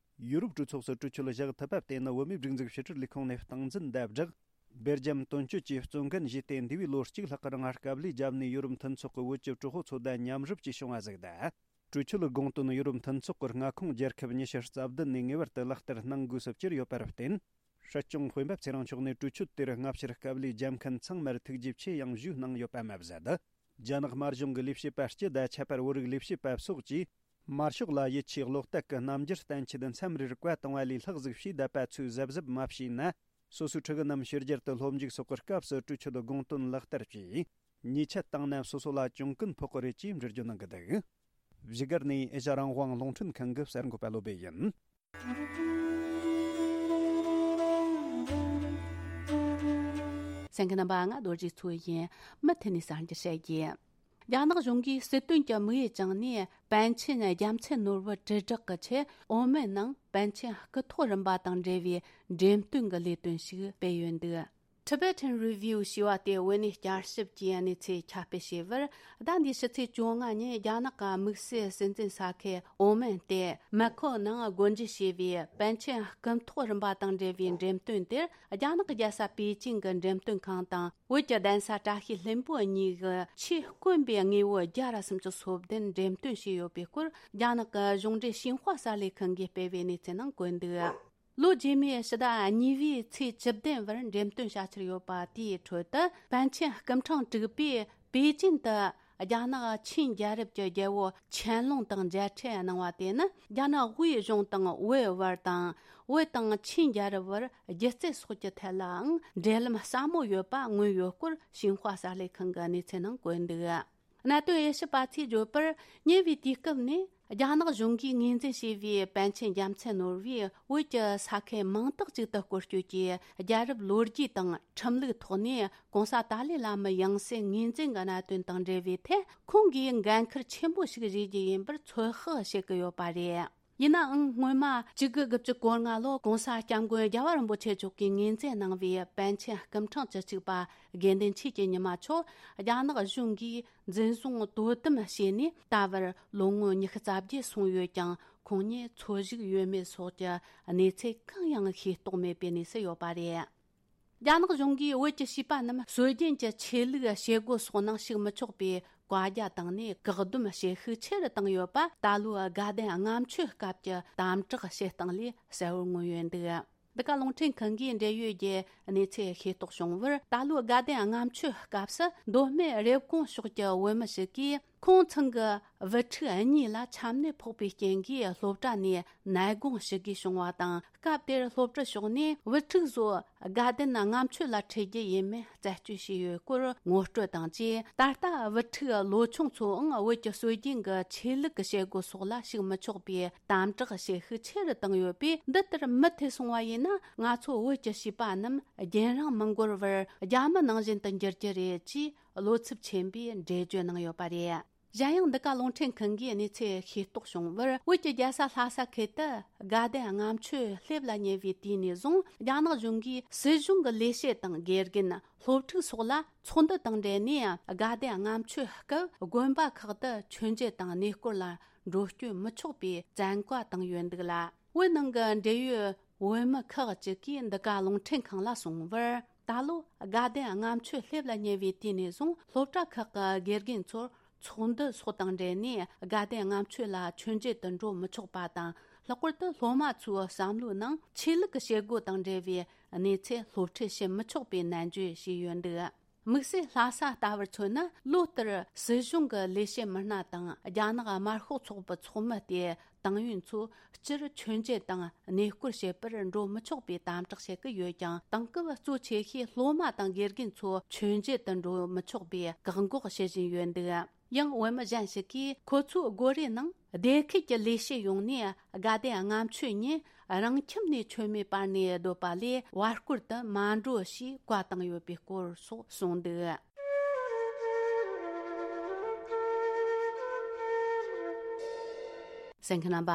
ཡུ་རོབ་གྲོས་ཚོགས་སུ་གྲོས་ཆོད་བཞག་ཐུབ་པ་དེ་ནི་བོད་མིའི་སྒྲིག་འཛུགས་ཕྱི་དྲིལ་ལས་ཁུངས་ནས་སྟངས་འཛིན་དང་སྦྲགས། སྦེལ་ཇམ་དོན་གཅོད་ཀྱིས་གཙོ་འགན་བཞེས་ཏེ། འདས་པའི་ལོ་གཅིག་ལྷག་གི་རིང་དཀའ་ལས་བརྒྱབ་ནས་ཡུ་རོབ་མཐུན་ཚོགས་ཀྱི་བོད་ཀྱི་གྲོས་ཚོགས་ཚོ་དང་མཉམ་རུབ་ཀྱིས་བྱུང་བ་ཟིག་དང་། གྲོས་ཆོད་དགོངས་དོན་ཡུ་རོབ་མཐུན་ཚོགས་ཀྱི་མངའ་ཁོངས་རྒྱལ་ཁབ་ཉི་ཤུ་རྩ་བདུན་ནས་ངེས་པར་དུ་ལག་བསྟར་གནང་དགོས་སུ་གྱུར་ཡོད་པར་བརྟེན། སྲིད་སྐྱོང་སྤེན་པ་ཚེ་རིང་མཆོག་ནས་གྲོས་ཆོད་དེར་སྔ་ཕྱིར་དཀའ་ལས་བརྒྱབ་མཁན་ཚང་མར་ཐུགས་རྗེ་ཆེ་ཡང་ཞུས་གནང་ཡོད་པ་མ་ཟད། རྒྱ་ནག་དམར་གཞུང་གི་ལས་བྱེད་པ་སྤྱི་དང་ཁྱད་པར་བོད་རིགས་ལས་བྱེད་པ་སོགས་ཀྱིས། དམར་ཤོག་ལ་ཡིད་ཆེས་བློ་གཏད་ཀྱི་རྣམ་འགྱུར་བསྟན་ཆེད་མཚམས་རེར་བཀའ་བཏང་བ་ལས་ལྷག་ཟིག་བྱས་བསྡད་པ་ཚོས་གཟབ་གཟབ་མ་བྱས་ན། སོ་སོའི་ཕྲུ་གུ་རྣམས་ཕྱི་རྒྱལ་དུ་སློབ་འཇུག་སོགས་ཀྱི་སྐབས་སུ་གྲོས་ཆོད་དགོངས་དོན་ལག་བསྟར་བྱས། ཉེས་ཆད་བཏང་ན་སོ་སོ་ལ་གྱོང་གུན་ཕོག་གི་རེད་ཅེས་འགྲེལ་བརྗོད་གནང་གི་འདུག། བཞུགས་སྒར་ནས་ཨེ་ཤ་རང་དབང་རླུང་འཕྲིན་ཁང་གི་གསར་འགོད་པ་བློ་བྷེ་ཡིན། གསན་མཁན་རྣམ་པ། ང་རྡོ་རྗེ་མཚོ་ཡིན། མུ་མཐུད་ནས་གསར་འགྱུར་བཤད་རྒྱུ། རྒྱ་ནག་གཞུང་གིས་སྲིད་དོན་གྱི་དམིགས་ཡུལ་བཅངས་ནས་པཎ་ཆེན་རྒྱལ་མཚན་ནོར་བུ་དྲིལ་བསྒྲགས་ཀྱི་ཆེད་ཨོ་མན་ནང་པཎ་ཆེན་སྐུ་ཐོག་རིམ་པ་དང་འབྲེལ་བའི་འགྲེམས་སྟོན་གྱི་ལས་དོན་ཞིག་སྤེལ་ཡོད་འདུག། Tibetan Review ཞེས་པ་དེ་བོད་གནས་བསྐྱར་ཞིབ་ཀྱི་གནས་ཚུལ་ཁྱབ་སྤེལ་བྱས་པར། ཟླ་འདིའི་ཕྱི་ཚེས་བཅོ་ལྔ་ཉིན་རྒྱ་ནག་གི་དམིགས་བསལ་སྲིད་འཛིན་ས་ཁུལ་ཨོ་མན་སྟེ་མེ་ཁོ་ནང་སྒོ་འབྱེད་བྱས་པའི་པཎ་ཆེན་སྐུ་ཐོག་རིམ་པ་དང་འབྲེལ་བའི་འགྲེམས་སྟོན་དེར། རྒྱ་ནག་རྒྱལ་ས་པེ་ཅིང་གི་འགྲེམས་སྟོན་ཁང་དང་བོད་ཀྱི་གདན་ས་བཀྲ་ཤིས་ལྷུན་པོ་གཉིས་ཀྱི་ཆེས་དཀོན་པའི་དངོས་པོ་བརྒྱ་ར་སུམ་ཅུ་སོ་བདུན་འགྲེམས་སྟོན་བྱས་ཡོད་པའི་སྐོར། རྒྱ་ནག་གི་གཞུང་འབྲེལ་ཤིན་ཧྭ་གསར་ལས་ཁང་གིས་སྤེལ་བའི་གནས་ཚུལ་ནང་བཀོད་འདུག། ལོ་རྗེས་མའི་ཕྱི་ཟླ་གཉིས་པའི་ཚེས་བཅུ་བདུན་བར་འགྲེམས་སྟོན་བྱ་འཆར་ཡོད་པ་དེའི་ཁྲོད་དུ། པཎ་ཆེན་སྐུ་ཕྲེང་དྲུག་པས་པེ་ཅིན་དུ་རྒྱ་ནག་ཆིན་རྒྱལ་རབས་ཀྱི་རྒྱལ་པོ་ཆན་ལུང་དང་མཇལ་འཕྲད་གནང་བ་དེ་ནི། རྒྱ་ནག་དབུས་གཞུང་དང་བོད་བར་དང་། བོད་དང་ཆིན་རྒྱལ་རབས་བར་སྒྱུ་རྩལ་སོགས་ཀྱི་ཐད་ལའང་འབྲེལ་ལམ་ཟབ་མོ་ཡོད་པ་མངོན་ཡོད་སྐོར་ཤིན་ཧྭ་གསར་ལས་ཁང་གི་གནས་ཚུལ་ནང་བཀོད་འདུག། གནད་དོན་དབྱེ་ཞིབ་པ་ཚོས་བརྗོད་པར། ཉེ་བའི་དུས་སྐབས་ནས་རྒྱ་ནག་གཞུང་གིས་ངོས་འཛིན་བྱས་པའི་པཎ་ཆེན་རྒྱལ་མཚན་ནོར་བུས་བོད་ཀྱི་ས་ཁུལ་མང་དག་ཅིག་ཏུ་སྐོར་སྐྱོད་ཀྱིས། རྒྱལ་རབས་ལོ་རྒྱུས་དང་ཁྲིམས་ལུགས་ཐོག་ནས་གོང་ས་ཏཱ་ལའི་བླ་མའི་ཡང་སྲིད་ངོས་འཛིན་གྱི་གནད་དོན་དང་འབྲེལ་བའི་ཐད། ཁོང་གིས་འགན་འཁུར་ཆེན་པོ་ཞིག་བཞེས་རྒྱུ་ཡིན་པར་ཚོད་དཔག་བྱེད་ཀྱི་ཡོད་པ་རེད། ཡིན་ནའང་། སྔོན་མ་བཅུ་དགུ་དགུ་བཅུ་གོ་ལྔ་ལོར་༸གོང་ས་༸སྐྱབས་མགོན་རྒྱལ་བ་རིན་པོ་ཆེ་མཆོག་གིས་ངོས་འཛིན་གནང་བའི་པཎ་ཆེན་སྐུ་ཕྲེང་བཅུ་གཅིག་པ་དགེ་འདུན་ཆོས་ཀྱི་ཉི་མ་མཆོག་རྒྱ་ནག་གཞུང་གིས་འཛིན་བཟུང་དོ་དམ་བྱས་ནས། ད་བར་ལོ་ངོ་ཉི་ཤུ་རྩ་བརྒྱད་སོང་ཡོད་ཀྱང་། ཁོང་ཉིད་འཚོ་བཞུགས་ཡོད་མེད་སོགས་ཀྱི་གནས་ཚུལ་གང་ཡང་ཤེས་རྟོགས་མེད་པའི་གནས་སུ་ཡོད་པ་རེད། རྒྱ་ནག་གཞུང་གིས་བོད་ཀྱི་བྱིས་པ་རྣམས་སྲོལ་རྒྱུན་གྱི་ཆོས་ལུགས་བྱེད་སྒོ་སོགས་ནང་ཞུགས་མི་ཆོག་པའི་བཀའ་རྒྱ་བཏང་ནས། བཀག་སྡོམ་བྱེད་ཤུགས་ཆེ་རུ་བཏང་ཡོད་པ། ད་ལོའི་དགའ་ལྡན་ལྔ་མཆོད་སྐབས་ཀྱི་དམ་དྲག་བྱེད་སྟངས་ལས་གསལ་བོར་མངོན་ཡོད་འདུག། འདི་ག་རླུང་འཕྲིན་ཁང་གིས་འབྲེལ་ཡོད་ཀྱི་གནས་ཚུལ་ཤེས་རྟོགས་བྱུང་བར། ད་ལོའི་དགའ་ལྡན་ལྔ་མཆོད་སྐབས་སུ། མདོ་སྨད་རེབ་གོང་ཕྱོགས་ཀྱི་བོད་མི་ཞིག་གིས། ཁོང་ཚང་གི་བུ་ཕྲུག་གཉིས་ལ་ཆམ་ནད་ཕོག་པའི་རྐྱེན་གྱིས། སློབ་གྲྭ་ནས་ནད་དགོངས་ཞུ་དགོས་བྱུང་བ་དང་། སྐབས་དེར་སློབ་གྲྭ་ཕྱོགས་ནས་བུ་ཕྲུག་ཚོ་དགའ་ལྡན་ལྔ་མཆོད་ལ་ཁྲིད་རྒྱུ་ཡིན་མིན་རྩད་གཅོད་བྱས་ཡོད་སྐོར་ངོ་སྤྲོད་དང་བཅས། ད་ལྟ་བུ་ཕྲུག་ལོ་ཆུང་ཚོའང་བོད་ཀྱི་སྲོལ་རྒྱུན་གྱི་ཆོས་ལུགས་ཀྱི་བྱེད་སྒོ་སོགས་ལ་ཞུགས་མི་ཆོག་པའི་དམ་དྲག་བྱེད་ཤུགས་ཆེ་རུ་བཏང་ཡོད་པས། འདི་ལྟར་མུ་མཐུད་སོང་བ་ཡིན་ན། ང་ཚོ་བོད་ཀྱི་བྱིས་པ་རྣམས་རྒྱུན་རིང་མི་འགོར་བར་རྒྱ་མི་ནང་བཞིན་དུ་འགྱུར་རྒྱུ་རེད་ཅེས། བློ་འཚབ་ཆེན་པོས་འགྲེལ་བརྗོད་གནང་ཡོད་པ་རེད། གཞན་ཡང་འདི་ག་རླུང་འཕྲིན་ཁང་གིས་གནས་ཚུལ་ཤེས་རྟོགས་བྱུང་བར། བོད་ཀྱི་རྒྱལ་ས་ལྷ་ས་ཁུལ་དུ་དགའ་ལྡན་ལྔ་མཆོད་སླེབས་ལ་ཉེ་བའི་དུས་ནས་བཟུང་རྒྱ་ནག་གཞུང་གིས་སྲིད་གཞུང་གི་ལས་བྱེད་དང་དགེ་རྒན། སློབ་ཕྲུག་སོགས་ལ་ཚོགས་འདུ་དང་འབྲེལ་ནས། དགའ་ལྡན་ལྔ་མཆོད་སྐབས་དགོན་པ་ཁག་ཏུ་མཆོད་མཇལ་དང་གནས་སྐོར་ལ་འགྲོ་སྐྱོད་མི་ཆོག་པའི་བཙན་བཀའ་བཏང་ཡོད་འདུག་ལ། བོད་ནང་གི་འབྲེལ་ཡོད་བོད་མི་ཁག་ཅིག་གིས་འདི་ག་རླུང་འཕྲིན་ཁང་ལ་གསུངས་པར། ད་ལོ་དགའ་ལྡན་ལྔ་མཆོད་སླེབས་ལ་ཉེ་བའི་དུས་ནས་བཟུང་སློབ་གྲྭ་ཁག་གི་དགེ་རྒན་ཚོར་ཚོགས་འདུ་སོགས་དང་འབྲེལ་ནས་དགའ་ལྡན་ལྔ་མཆོད་ལ་མཆོད་མཇལ་དུ་འགྲོ་མི་ཆོག་པ་དང་། ལྷག་པར་དུ་སློབ་མ་ཚོའི་བསམ་བློའི་ནང་ཆོས་ལུགས་ཀྱི་བྱེད་སྒོ་དང་འབྲེལ་བའི་གནས་ཚུལ་སློབ་ཁྲིད་བྱེད་མི་ཆོག་པའི་ནན་བརྗོད་བྱས་ཡོད་འདུག། དམིགས་བསལ་ལྷ་ས་ལྟ་བུར་མཚོན་ན། ལོ་ལྟར་སྲིད་གཞུང་གི་ལས་བྱེད་མི་སྣ་དང་རྒྱ་ནག་དམར་ཤོག་ཚོགས་པའི་ཚོགས་མི་སྟེ། ཏང་ཡོན་ཚོ་སྤྱིར་མཆོད་མཇལ་དང་གནས་སྐོར་བྱེད་པར་འགྲོ་མི་ཆོག་པའི་དམ་དྲག་བྱེད་ཀྱི་ཡོད་ཀྱང་། དེང་སྐབས་གཙོ་ཆེ་ཤོས་སློབ་མ་དང་དགེ་རྒན་ཚོ་མཆོད་མཇལ་དུ་འགྲོ་མི་ཆོག་པའི་བཀག་འགོག་བྱེད་བཞིན་ཡོད་འདུག། ཡང་བོད་མི་གཞན་ཞིག་གིས་ཁོ་ཚོའི་སྒོ་རའི་ནང་སྡེ་ཁུལ་གྱི་ལས་བྱེད་ཡོངས་ནས་དགའ་ལྡན་ལྔ་མཆོད་ཉིན་རང་ཁྱིམ་ནས་མཆོད་མེ་སྤར་ནས་སྡོད་པ་ལས་བར་སྐོར་དུ་མ་འགྲོ་ཞེས་བཀའ་བཏང་ཡོད་པའི་སྐོར་སོགས་གསུངས་འདུག། གསན་མཁན་རྣམ་པ།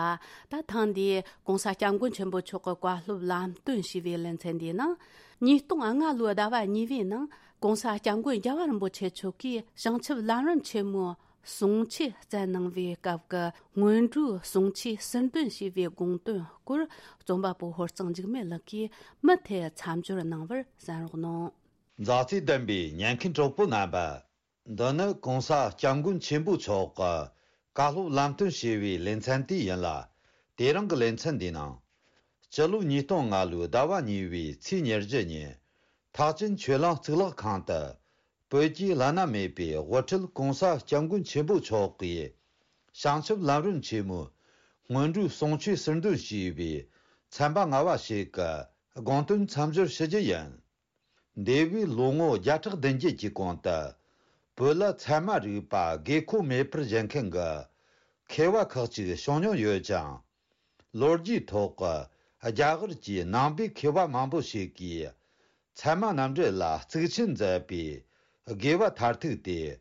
ད་ཐེངས་འདིའི་༸གོང་ས་༸སྐྱབས་མགོན་ཆེན་པོ་མཆོག་གི་བཀའ་སློབ་ལམ་སྟོན་ཞུས་པའི་ལེ་ཚན་འདིའི་ནང་། ཉིས་སྟོང་ལྔ་ལོའི་ཟླ་བ་གཉིས་པའི་ནང་༸གོང་ས་༸སྐྱབས་མགོན་རྒྱལ་བ་རིན་པོ་ཆེ་མཆོག་གིས་བྱང་ཆུབ་ལམ་རིམ་ཆེན་མོའི་གསུང་ཆོས་བསྩལ་གནང་བའི་སྐབས་ཀྱི་སྔོན་འགྲོའི་གསུང་ཆོས་ཟུར་འདོན་ཞུས་པའི་དགོངས་དོན་སྐོར། རྩོམ་པ་པོ་ཧོར་གཙང་འཇིགས་མེད་ལགས་ཀྱིས་མུ་མཐུད་མཚམས་སྦྱོར་གནང་བར་གསན་རོགས་གནང་། མཛའ་བརྩེ་ལྡན་པའི་ཉན་མཁན་གྲོགས་པོ་རྣམ་པ། འདི་ནི་༸གོང་ས་༸སྐྱབས་མགོན་ཆེན་པོ་མཆོག་གི་བཀའ་སློབ་ལམ་སྟོན་ཞུས་པའི་ལེ་ཚན་དེ་ཡིན་ལ། དེ་རིང་གི་ལེ་ཚན་འདིའི་ནང་། སྤྱི་ལོ་ཉིས་སྟོང་ལྔ་ལོའི་ཟླ་བ་གཉིས་པའི་ཚེས་ཉེར་བཞི་ཉིན། ཐེག་ཆེན་ཆོས་གླིང་གཙུག་ལག་ཁང་དུ། བོད་ཀྱི་བླ་ན་མེད་པའི་དབུ་ཁྲིད་༸གོང་ས་༸སྐྱབས་མགོན་ཆེན་པོ་མཆོག་གིས། བྱང་ཆུབ་ལམ་རིམ་ཆེན་མོའི་སྔོན་འགྲོའི་གསུང་ཆོས་ཟུར་འདོན་ཞུས་པའི་ཚན་པ་ལྔ་པ་ཞིག་གི་དགོངས་དོན་མཚམས་སྦྱོར་ཞུ་རྒྱུ་ཡིན། འདས་པའི་ལོ་ངོ་བརྒྱ་ཕྲག་བདུན་བརྒྱད་ཀྱི་གོང་དུ། བོད་ལ་ཚད་མ་རིག་པ་དགོས་མཁོ་མེད་པར་བཞེད་མཁན་གྱི་མཁས་པ་ཁག་ཅིག་བྱུང་མྱོང་ཡོད་ཅིང་། ལོ་རྒྱུས་ཐོག་གི་རྒྱ་གར་གྱི་ནང་པའི་མཁས་པ་མང་པོ་ཞིག་གིས། ཚད་མ་རྣམ་འགྲེལ་ལ་གཙིགས་ཆེན་མཛད་པའི་དགེ་བ་མཐར་ཐུག་སྟེ།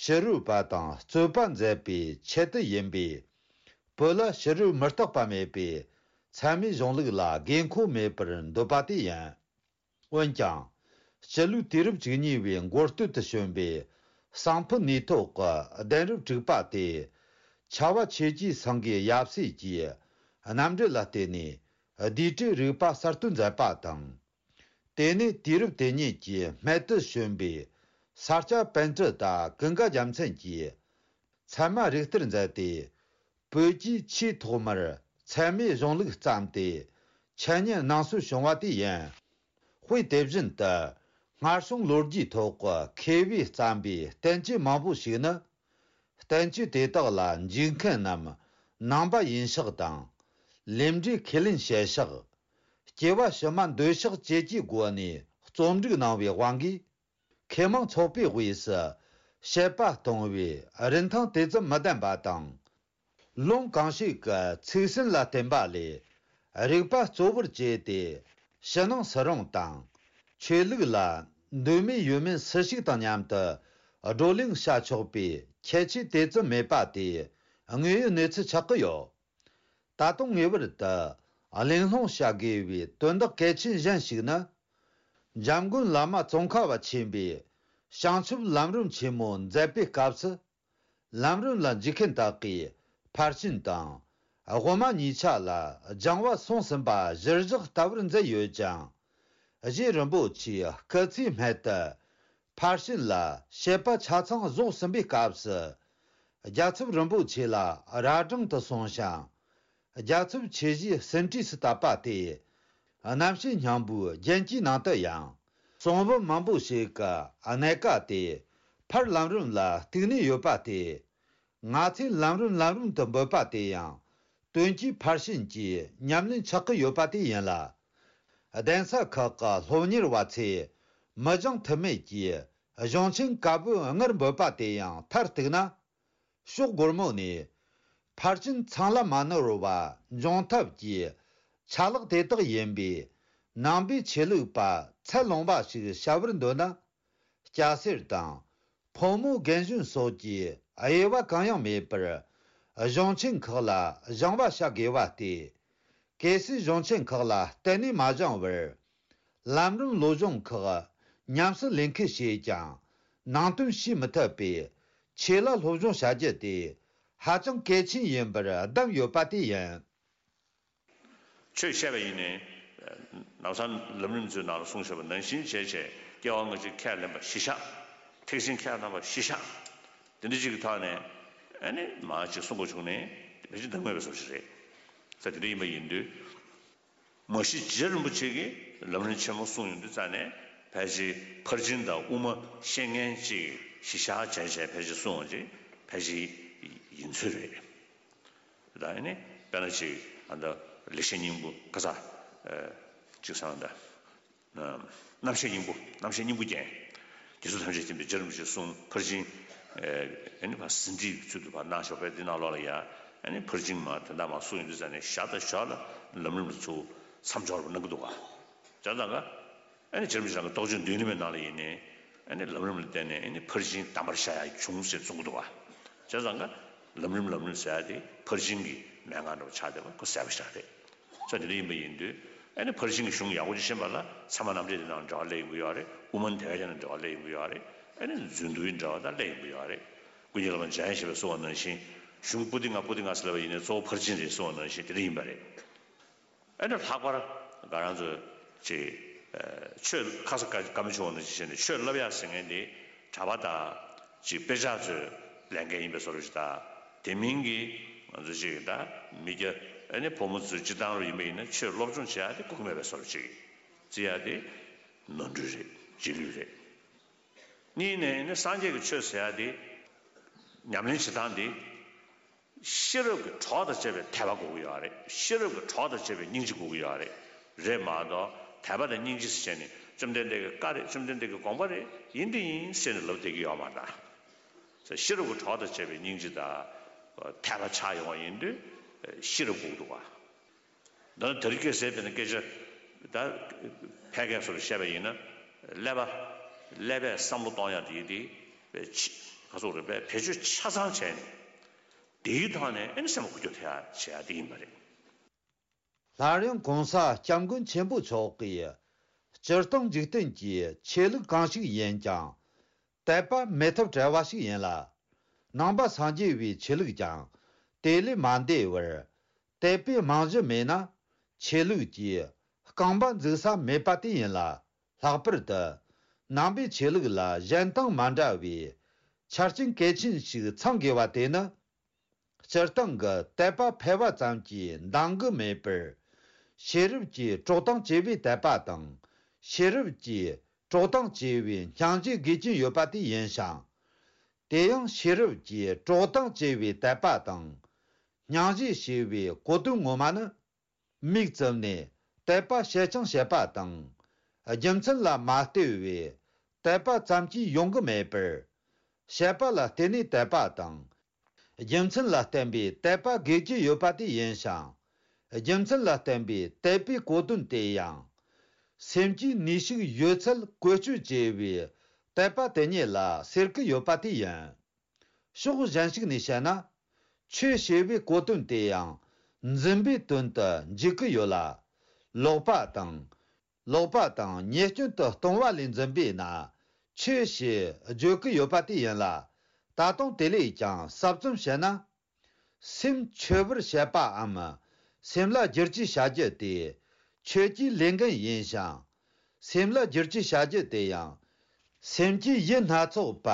ཕྱི་རོལ་པ་དང་རྩོད་པ་མཛད་པའི་ཆེད་དུ་ཡིན་པས། བོད་ལ་ཕྱི་རོལ་མུ་སྟེགས་པ་མེད་པའི་ཚད་མའི་གཞུང་ལུགས་ལ་དགོས་མཁོ་མེད་པར་འདོད་པ་དེ་ཡིན། འོན་ཀྱང་། སྤྱི་ལོའི་དུས་རབས་བཅུ་གཉིས་པའི་འགོ་སྟོད་དུ་བྱོན་པའི་གསང་ཕུ་ནུས་ཐོག་གི་གདན་རབས་དྲུག་པ་སྟེ། ཆ་བ་ཆོས་ཀྱི་སེང་གེ་ཡབ་སྲས་ཀྱི་རྣམ་འགྲེལ་ལ་བརྟེན་ནས་རྡུལ་བྲལ་རིག་པ་གསར་གཏོད་མཛད་པ་དང་། དེ་ནས་དུས་རབས་དེ་ཉིད་ཀྱི་སྨད་དུ་བྱོན་པའི་ས་སྐྱ་པཎྜི་ཏ་ཀུན་དགའ་རྒྱལ་མཚན་གྱིས། ཚད་མ་རིག་གཏེར་མཛད་དེ། བོད་ཀྱིས་ཆེས་ཐོག་མར་ཚད་མའི་གཞུང་ལུགས་བརྩམས་ཏེ། འཆད་ཉན་གནང་སྲོལ་བྱུང་བ་དེ་ཡིན། དཔེ་དེ་བཞིན་དུ། སྔར་བྱུང་ལོ་རྒྱུས་ཐོག་གི་མཁས་པས་བརྩམས་པའི་བསྟན་བཅོས་མང་པོ་ཞིག་ནི། བསྟན་བཅོས་དེ་དག་ལ་འཇུག་མཁན་རྣམས་ནང་པ་ཡིན་ཤག་དང་། ལས་འབྲས་ཁས་ལེན་བྱེད་ཤག་སྐྱེ་བ་ཕྱི་མ་འདོད་ཤག་བཅས་ཀྱི་སྒོ་ནས་རྩོམ་སྒྲིག་གནང་བའི་དབང་གིས། མཁས་མང་ཚོགས་པའི་དབུས་སུ་དཔྱད་པ་གཏོང་བའི་རིན་ཐང་དེ་ཙམ་མི་ལྡན་པ་དང་། ལུང་གང་ཞིག་གི་ཚིག་ཟིན་ལ་བརྟེན་པ་ལས། རིག་པ་གཙོ་བོར་བྱས་ཏེ། ཕྱི་ནང་སུ་རུང་དང་། ཆོས་ལུགས་ལ་འདོད་མོས་ཡོད་མེད་སུ་ཞིག་དང་མཉམ་དུ་བགྲོ་གླེང་བྱ་ཆོག་པའི་ཁྱད་ཆོས་དེ་ཙམ་མེད་པ་དེ་དངོས་ཡོད་གནས་ཚུལ་ཆགས་ཀྱི་ཡོད། ད་དུང་ངེས་པར་དུ་གླེང་སློང་བྱ་དགོས་པའི་དོན་དག་གལ་ཆེན་གཞན་ཞིག་ནི། འཇམ་མགོན་བླ་མ་ཙོང་ཁ་པ་ཆེན་པོས་བྱང་ཆུབ་ལམ་རིམ་ཆེན་མོ་མཛད་པའི་སྐབས་སུ། ལམ་རིམ་ལ་འཇུག་མཁན་དག་གིས་ཕར་ཕྱིན་དང་། དབུ་མ་གཉིས་ཆ་ལ་སྦྱང་བ་སོང་ཟིན་པ་གཞིར་བཞག་ལྟ་བུར་མཛད་ཡོད་ཅིང་། རྗེ་རིན་པོ་ཆེའི་སྐུ་ཚེའི་སྨད་དུ། ཕར་ཕྱིན་ལ་དཔྱད་པ་ཆ་ཚང་རྫོགས་ཟིན་པའི་སྐབས་སུ། རྒྱལ་ཚབ་རིན་པོ་ཆེ་ལ་རྭ་སྒྲེང་དུ་སོང་ཞིང་། རྒྱལ་ཚབ་ཆོས་བཞིའི་ཟིན་བྲིས་སུ་བཏབ་པ་སྟེ། རྣམ་བཤད་སྙིང་པོའི་རྒྱན་གྱི་ནང་དུ་ཡང་། གསུང་འབུམ་མང་པོ་ཞིག་གི་གནད་ཀ་དེ་ཕར་ལམ་རིམ་ལ་གཏུགས་ནས་ཡོད་པ་སྟེ། ང་ཚོས་ལམ་རིམ་ལམ་རིམ་དུ་འབོད་པ་དེ་ཡང་། དོན་གྱིས་ཕར་ཕྱིན་གྱི་ཉམས་ལེན་ཆགས་ཀྱི་ཡོད་པ་དེ་ཡིན་ལ། གདན་ས་ཁག་གི་སློབ་གཉེར་བ་ཚོས་མི་སྦྱང་ཐབས་མེད་ཀྱི་གཞུང་ཆེན་བཀའ་པོད་ལྔར་འབོད་པ་དེ་ཡང་མཐར་གཏུགས་ན། ཕྱོགས་སྒོར་མོ་ནས་ཕར་ཕྱིན་ཚང་ལ་མ་ནོར་བ་འབྱུང་ཐབས་ཀྱི་ཆ་ལག་དེ་དག་ཡིན་པས། ནང་པའི་ཆོས་ལུགས་པ་ཚད་ལོངས་པ་ཞིག་བྱ་བར་འདོད་ན། སྐྱ་སེར་དང་ཕོ་མོ་རྒན་གཞོན་སོགས་ཀྱི་ དབྱེ་བ་གང་ཡང་མེད་པར་གཞུང་ཆེན་ཁག་ལ་སྦྱང་བ་བྱ་དགོས་པ་སྟེ། གལ་སྲིད་གཞུང་ཆེན་ཁག་ལ་གཏན་ནས་མ་སྦྱང་བར། ལམ་རིམ་བློ་སྦྱོང་ཁག་ཉམས་སུ་ལེན་ཁུལ་བྱས་ཀྱང་ནང་དོན་ཤེས་མི་ཐུབ་པས། ཆོས་ལ་སློབ་སྦྱོང་བྱ་རྒྱུ་དེ་ཧ་ཅང་གལ་ཆེན་ཡིན་པར་གདམས་ཡོད་པ་དེ་ཡིན། ཆོས་བཤད་པ་ཡིན་ནའི། ནམ་སང་ལམ་རིམ་ཚོའི་ནང་ལ་གསུངས་བཞག་པ་ནང་བཞིན་བྱས་བྱས། སྐྱེ་བ་སྔ་ཕྱི་ཁས་ལེན་པ་གཞི་བཞག་ཐེག་ཆེན་ཁས་བླངས་པ་གཞི་བཞག་དེ་འདྲ་ཅིག་གི་ཐོག་ནས། ཨ་ནི་མ་ཅིག་གསུང་དགོས་བྱུང་ནས་ཕལ་ཆེར་འདང་མེད་པའི་བཟོ་ཞིག་རེད། ས་དེ་འདྲ་ཡིན་པ་ཡིན་དུས། མ་གཞི་རྗེ་རིན་པོ་ཆེ་གིས་ལམ་རིམ་ཆེན་མོ་གསུངས་ཡོང་དུས་ཙ་ནས། ཕལ་ཆེར་ཕར་ཕྱིན་དང་དབུ་མ་བཤད་མཁན་ཅིག་གཞི་བཞག་བྱས་བྱས་ཕལ་ཆེར་གསུངས་པ་ཅིག་ཕལ་ཆེར་ཡིན་ཚོད་རེད། ད་ཨ་ནི་དཔེར་ན་ཅིག་ཨ་ད་ལེགས་བཤད་སྙིང་པོ་ཁ་ས་ཅིག་སང་ད། རྣམ་བཤད་སྙིང་པོ། རྣམ་བཤད་སྙིང་པོ་རྒྱན། རྗེ་བཙུན་ཐམས་ཅད་མཁྱེན་པའི་རྗེ་རིན་པོ་ཆེའི་གསུང་ཕར་ཕྱིན། ཨ་ནི་ཕར་ཟིན་བྲིས་ཚུལ་དུ་ཕར་གནང་ཞོག་པའི་འདི་ནང་ལོགས་ལ་ཡ། ཨ་ནི་ཕར་ཕྱིན་མ་དོན་དག་མ་གསུངས་ཡོང་དུས་ཙ་ནས་ཞར་དང་ཞོར་ལ་ལམ་རིམ་ལ་ཚུར་མཚམས་སྦྱོར་བ་གནང་གི་འདུག་ག་བྱས་ཙང་ཀ་ཨ་ནི་རྗེ་རིན་པོ་ཆེ་རང་གི་རྟོགས་བརྗོད་མདུན་ལམ་པའི་ནང་ལ་ཡིན་ནའི། ཨ་ནི་ལམ་རིམ་ལ་བརྟེན་ནས་ཨ་ནི་ཕར་ཕྱིན་དམ་པར་བཞག་ཡ་བྱུང་ཟེར་གསུང་གི་འདུག་ག་བྱས་ཙང་ཀ་ལམ་རིམ་ལམ་རིམ་ཟེར་ཡ་དེ་ཕར་ཕྱིན་གྱི་མན་ངག་འདྲ་བོ་ཆགས་བསྡད་པ་ཁོ་གསལ་པོ་ཞིག་རེད། ས་དེ་འདྲ་ཡིན་པ་ཡིན་དུས། ཨ་ནི་ཕར་ཕྱིན་གྱི་གཞུང་ཡག་པོ་ཅིག་ཤེས་པ་ལ་ཚད་མ་རྣམ་འགྲེལ་དེ་ནང་འབྲེལ་བ་སླེབས་ཡོང་གི་ཡོད་རེད། དབུ་མ་དེ་བས་ཀྱང་འབྲེལ་བ་སླེབས་ཡོང་གི་ཡོད་རེད། ཨ་ནི་མཛོད་འདུལ་གྱི་འབྲེལ་བ་དང་སླེབས་ཡོང་གི་ཡོད་རེད། ཀུན་མཁྱེན་བླ་མ་འཇམ་དབྱངས་བཞད་པས་གསུངས་པ་ནང་བཞིན། གཞུང་པོ་ཏི་ང་པོ་ཏི་ང་ཟེར་ལབ་པ་ཡིན་ནའི་གཙོ་བོ་ཕར་ཕྱིན་རེད་གསུངས་པ་ནང་བཞིན་དེ་འདྲ་ཡིན་པ་རེད། ཨ་ནི་ལྷག་པར་ང་རང་ཚོ་ཅིག་ཆོས་ཁ་ས་བཀའ་བཀའ་མོལ་ཆེ་བ་ནང་བཞིན་བྱས་ནས་ཆོས་བསླབ་ཡག་ཟེར་མཁན་དེ་གྲྭ་པ་དང་ཅིག་དཔེ་ཆ་ཚོས་ལས་འགན་ཡིན་པའི་བཟོ་འདྲ་ཞིག་དང་། དེ་མིན་གྱི་ང་ཚོ་ཅིག་ད་མི་སྐྱ་ཨ་ནི་ཕོ་མོ་ཚོས་སྤྱིར་བཏང་རུ་ཡིན་པ་ཡིན་ན་ཆོས་སློབ་སྦྱོང་བྱེད་ཡག་དེ་དགོས་ཀྱི་མེད་པའི་བཟོ་འདྲ་ཅིག་བརྩི་ཡག་དེ་ནོར་འཁྲུལ་རེད། རྗེས་ལུས་རེད། གཉིས་ནས་ནི་སངས་རྒྱས་ཀྱི་ཆོས་ཟེར་ཡ་དེ་ཉམས་ལེན་བྱེད་སྟངས་དེ་ཤེས་རབ་ཀྱི་གྲོགས་དང་བཅས་པའི་དད་པ་དགོས་ཀྱི་ཡོད་རེད། ཤེས་རབ་ཀྱི་གྲོགས་དང་བཅས་པའི་སྙིང་རྗེ་དགོས་ཀྱི་ཡོད་རེད། རེད་མ་གཏོགས་དད་པ་དང་སྙིང་རྗེ་ཟེར་བྱས་ནས་བཅོམ་ལྡན་འདས་ཀྱི་བཀའ་རེད། བཅོམ་ལྡན་འདས་ཀྱི་དགོངས་པ་རེད། ཡིན་དེ་ཡིན་ཟེར་ནས་ལབ་བསྡད་ཀྱི་ཡོད་མ་རེད། ཤེས་རབ་ཀྱི་གྲོགས་དང་བཅས་པའི་སྙིང་རྗེ་དང་དད་པ་ཆགས་ཡོང་བ་ཡིན་དུས་ཤེས་རབ་དགོས་ཀྱི་འདུག་བ། འདི་ནི་དེ་རིང་ཁ་སང་དཔེར་ན་སྐད་ཆ་ད་ཕལ་སྐད་སོགས་བཤད་པ་ཡིན་ན། ཀླད་པ་ཀླད་པས་བསམ་བློ་གཏོང་ཡག་དེ་དེ་ཁ་སོགས་རེད་པས། བེད་སྤྱོད་ཆ་ཚང་བྱས་ནས་དེའི་ཐོག་ནས་ཨེ་ནི་སེམས་པ་འགུལ་སྐྱོད་ཐེབས་ཡག་བྱེད་ཡག་དེ་ཡིན་པ་རེད། སླར་ཡང་གོང་ས་སྐྱབས་མགོན་ཆེན་པོ་མཆོག་གིས་སྤྱིར་བཏང་འཇིག་རྟེན་གྱི་ཆོས་ལུགས་གང་ཞིག་ཡིན་ཀྱང་དད་པ་མེད་ཐབས་བྲལ་བ་ཞིག་ཡིན་ལ། ནང་པ་སངས་རྒྱས་པའི་ཆོས་ལུགས་ཀྱང་དེ་ལས་མ་འདས་པར། དད་པའི་རྨང་གཞི་མེད་ན་ཆོས་ལུགས་ཀྱི་རྐང་པ་འཛུགས་ས་མེད་པ་དེ་ཡིན་ལ། ལྷག་པར་དུ་ནང་པའི་ཆོས་ལུགས་ལ་གཞན་དང་མ་འདྲ་བའི་ཆ་རྐྱེན་གལ་ཆེན་ཞིག་ཚང་དགོས་པ་དེ་ནི། སྤྱིར་བཏང་གི་དད་པ་ཕལ་བ་ཙམ་གྱིས་འདང་གི་མེད་པར། ཤེས་རབ་ཀྱིས་དཀྲོག་གཏམ་བྱས་པའི་དད་པ་དང་། ཤེས་རབ་ཀྱིས་དཀྲོག་གཏམ་བྱས་པའི་སྙིང་རྗེ་དགོས་ཀྱིན་ཡོད་པ་དེ་ཡིན་ཞིང་། དེ་ཡང་ཤེས་རབ་ཀྱིས་དཀྲོག་གཏམ་བྱས་པའི་དད་པ་དང་། སྙིང་རྗེ་ཞེས་པའི་གོ་དོན་ངོ་མ་ནི། མིག་བཙུམ་ནས་དད་པ་བྱེད་ཅིང་བྱེད་པ་དང་། རྒྱུ་མཚན་ལ་མ་ལྟོས་པའི་དད་པ་ཙམ་གྱིས་ཡོང་གི་མེད་པར། བྱེད་པ་ལ་བརྟེན་ནས་དད་པ་དང་། རྒྱུ་མཚན་ལ་བརྟེན་པའི་དད་པ་དགོས་ཀྱི་ཡོད་པ་དེ་ཡིན་ཞིང་། རྒྱུ་མཚན་ལ་བརྟེན་པའི་དད་པའི་གོ་དོན་དེ་ཡང་། སེམས་ཀྱི་ནུས་ཤུགས་ཡོད་ཚད་བཀོལ་སྤྱོད་བྱས་པའི་དད་པ་དེ་ཉིད་ལ་ཟེར་གྱི་ཡོད་པ་དེ་ཡིན། ཕྱོགས་གཞན་ཞིག་ནས་བཤད་ན། ཆོས་ཞེས་པའི་གོ་དོན་དེ་ཡང་འཛིན་པའི་དོན་དུ་འཇུག་གི་ཡོད་ལ། ལོག་པ་དང་། ལོག་པ་དང་ཉེས་སྐྱོན་དུ་ལྟུང་བ་ལས་འཛིན་པས་ན་ཆོས་ཞེས་བརྗོད་ཀྱི་ཡོད་པ་དེ་ཡིན་ལ། ད་དུང་དེ་ལས་ཀྱང་ཟབ་ཙམ་བཤད་ན། སེམས་འཆོས་པར་བྱེད་པའམ། སེམས་ལ་བསྒྱུར་བཅོས་བྱ་རྒྱུ་དེ་ཆོས་ཀྱི་ལས་འགན་ཡིན་ཞིང་། སེམས་ལ་བསྒྱུར་བཅོས་བྱ་རྒྱུ་དེ་ཡང་། སེམས་ཀྱི་ཡུལ་སྣ་ཚོགས་པ་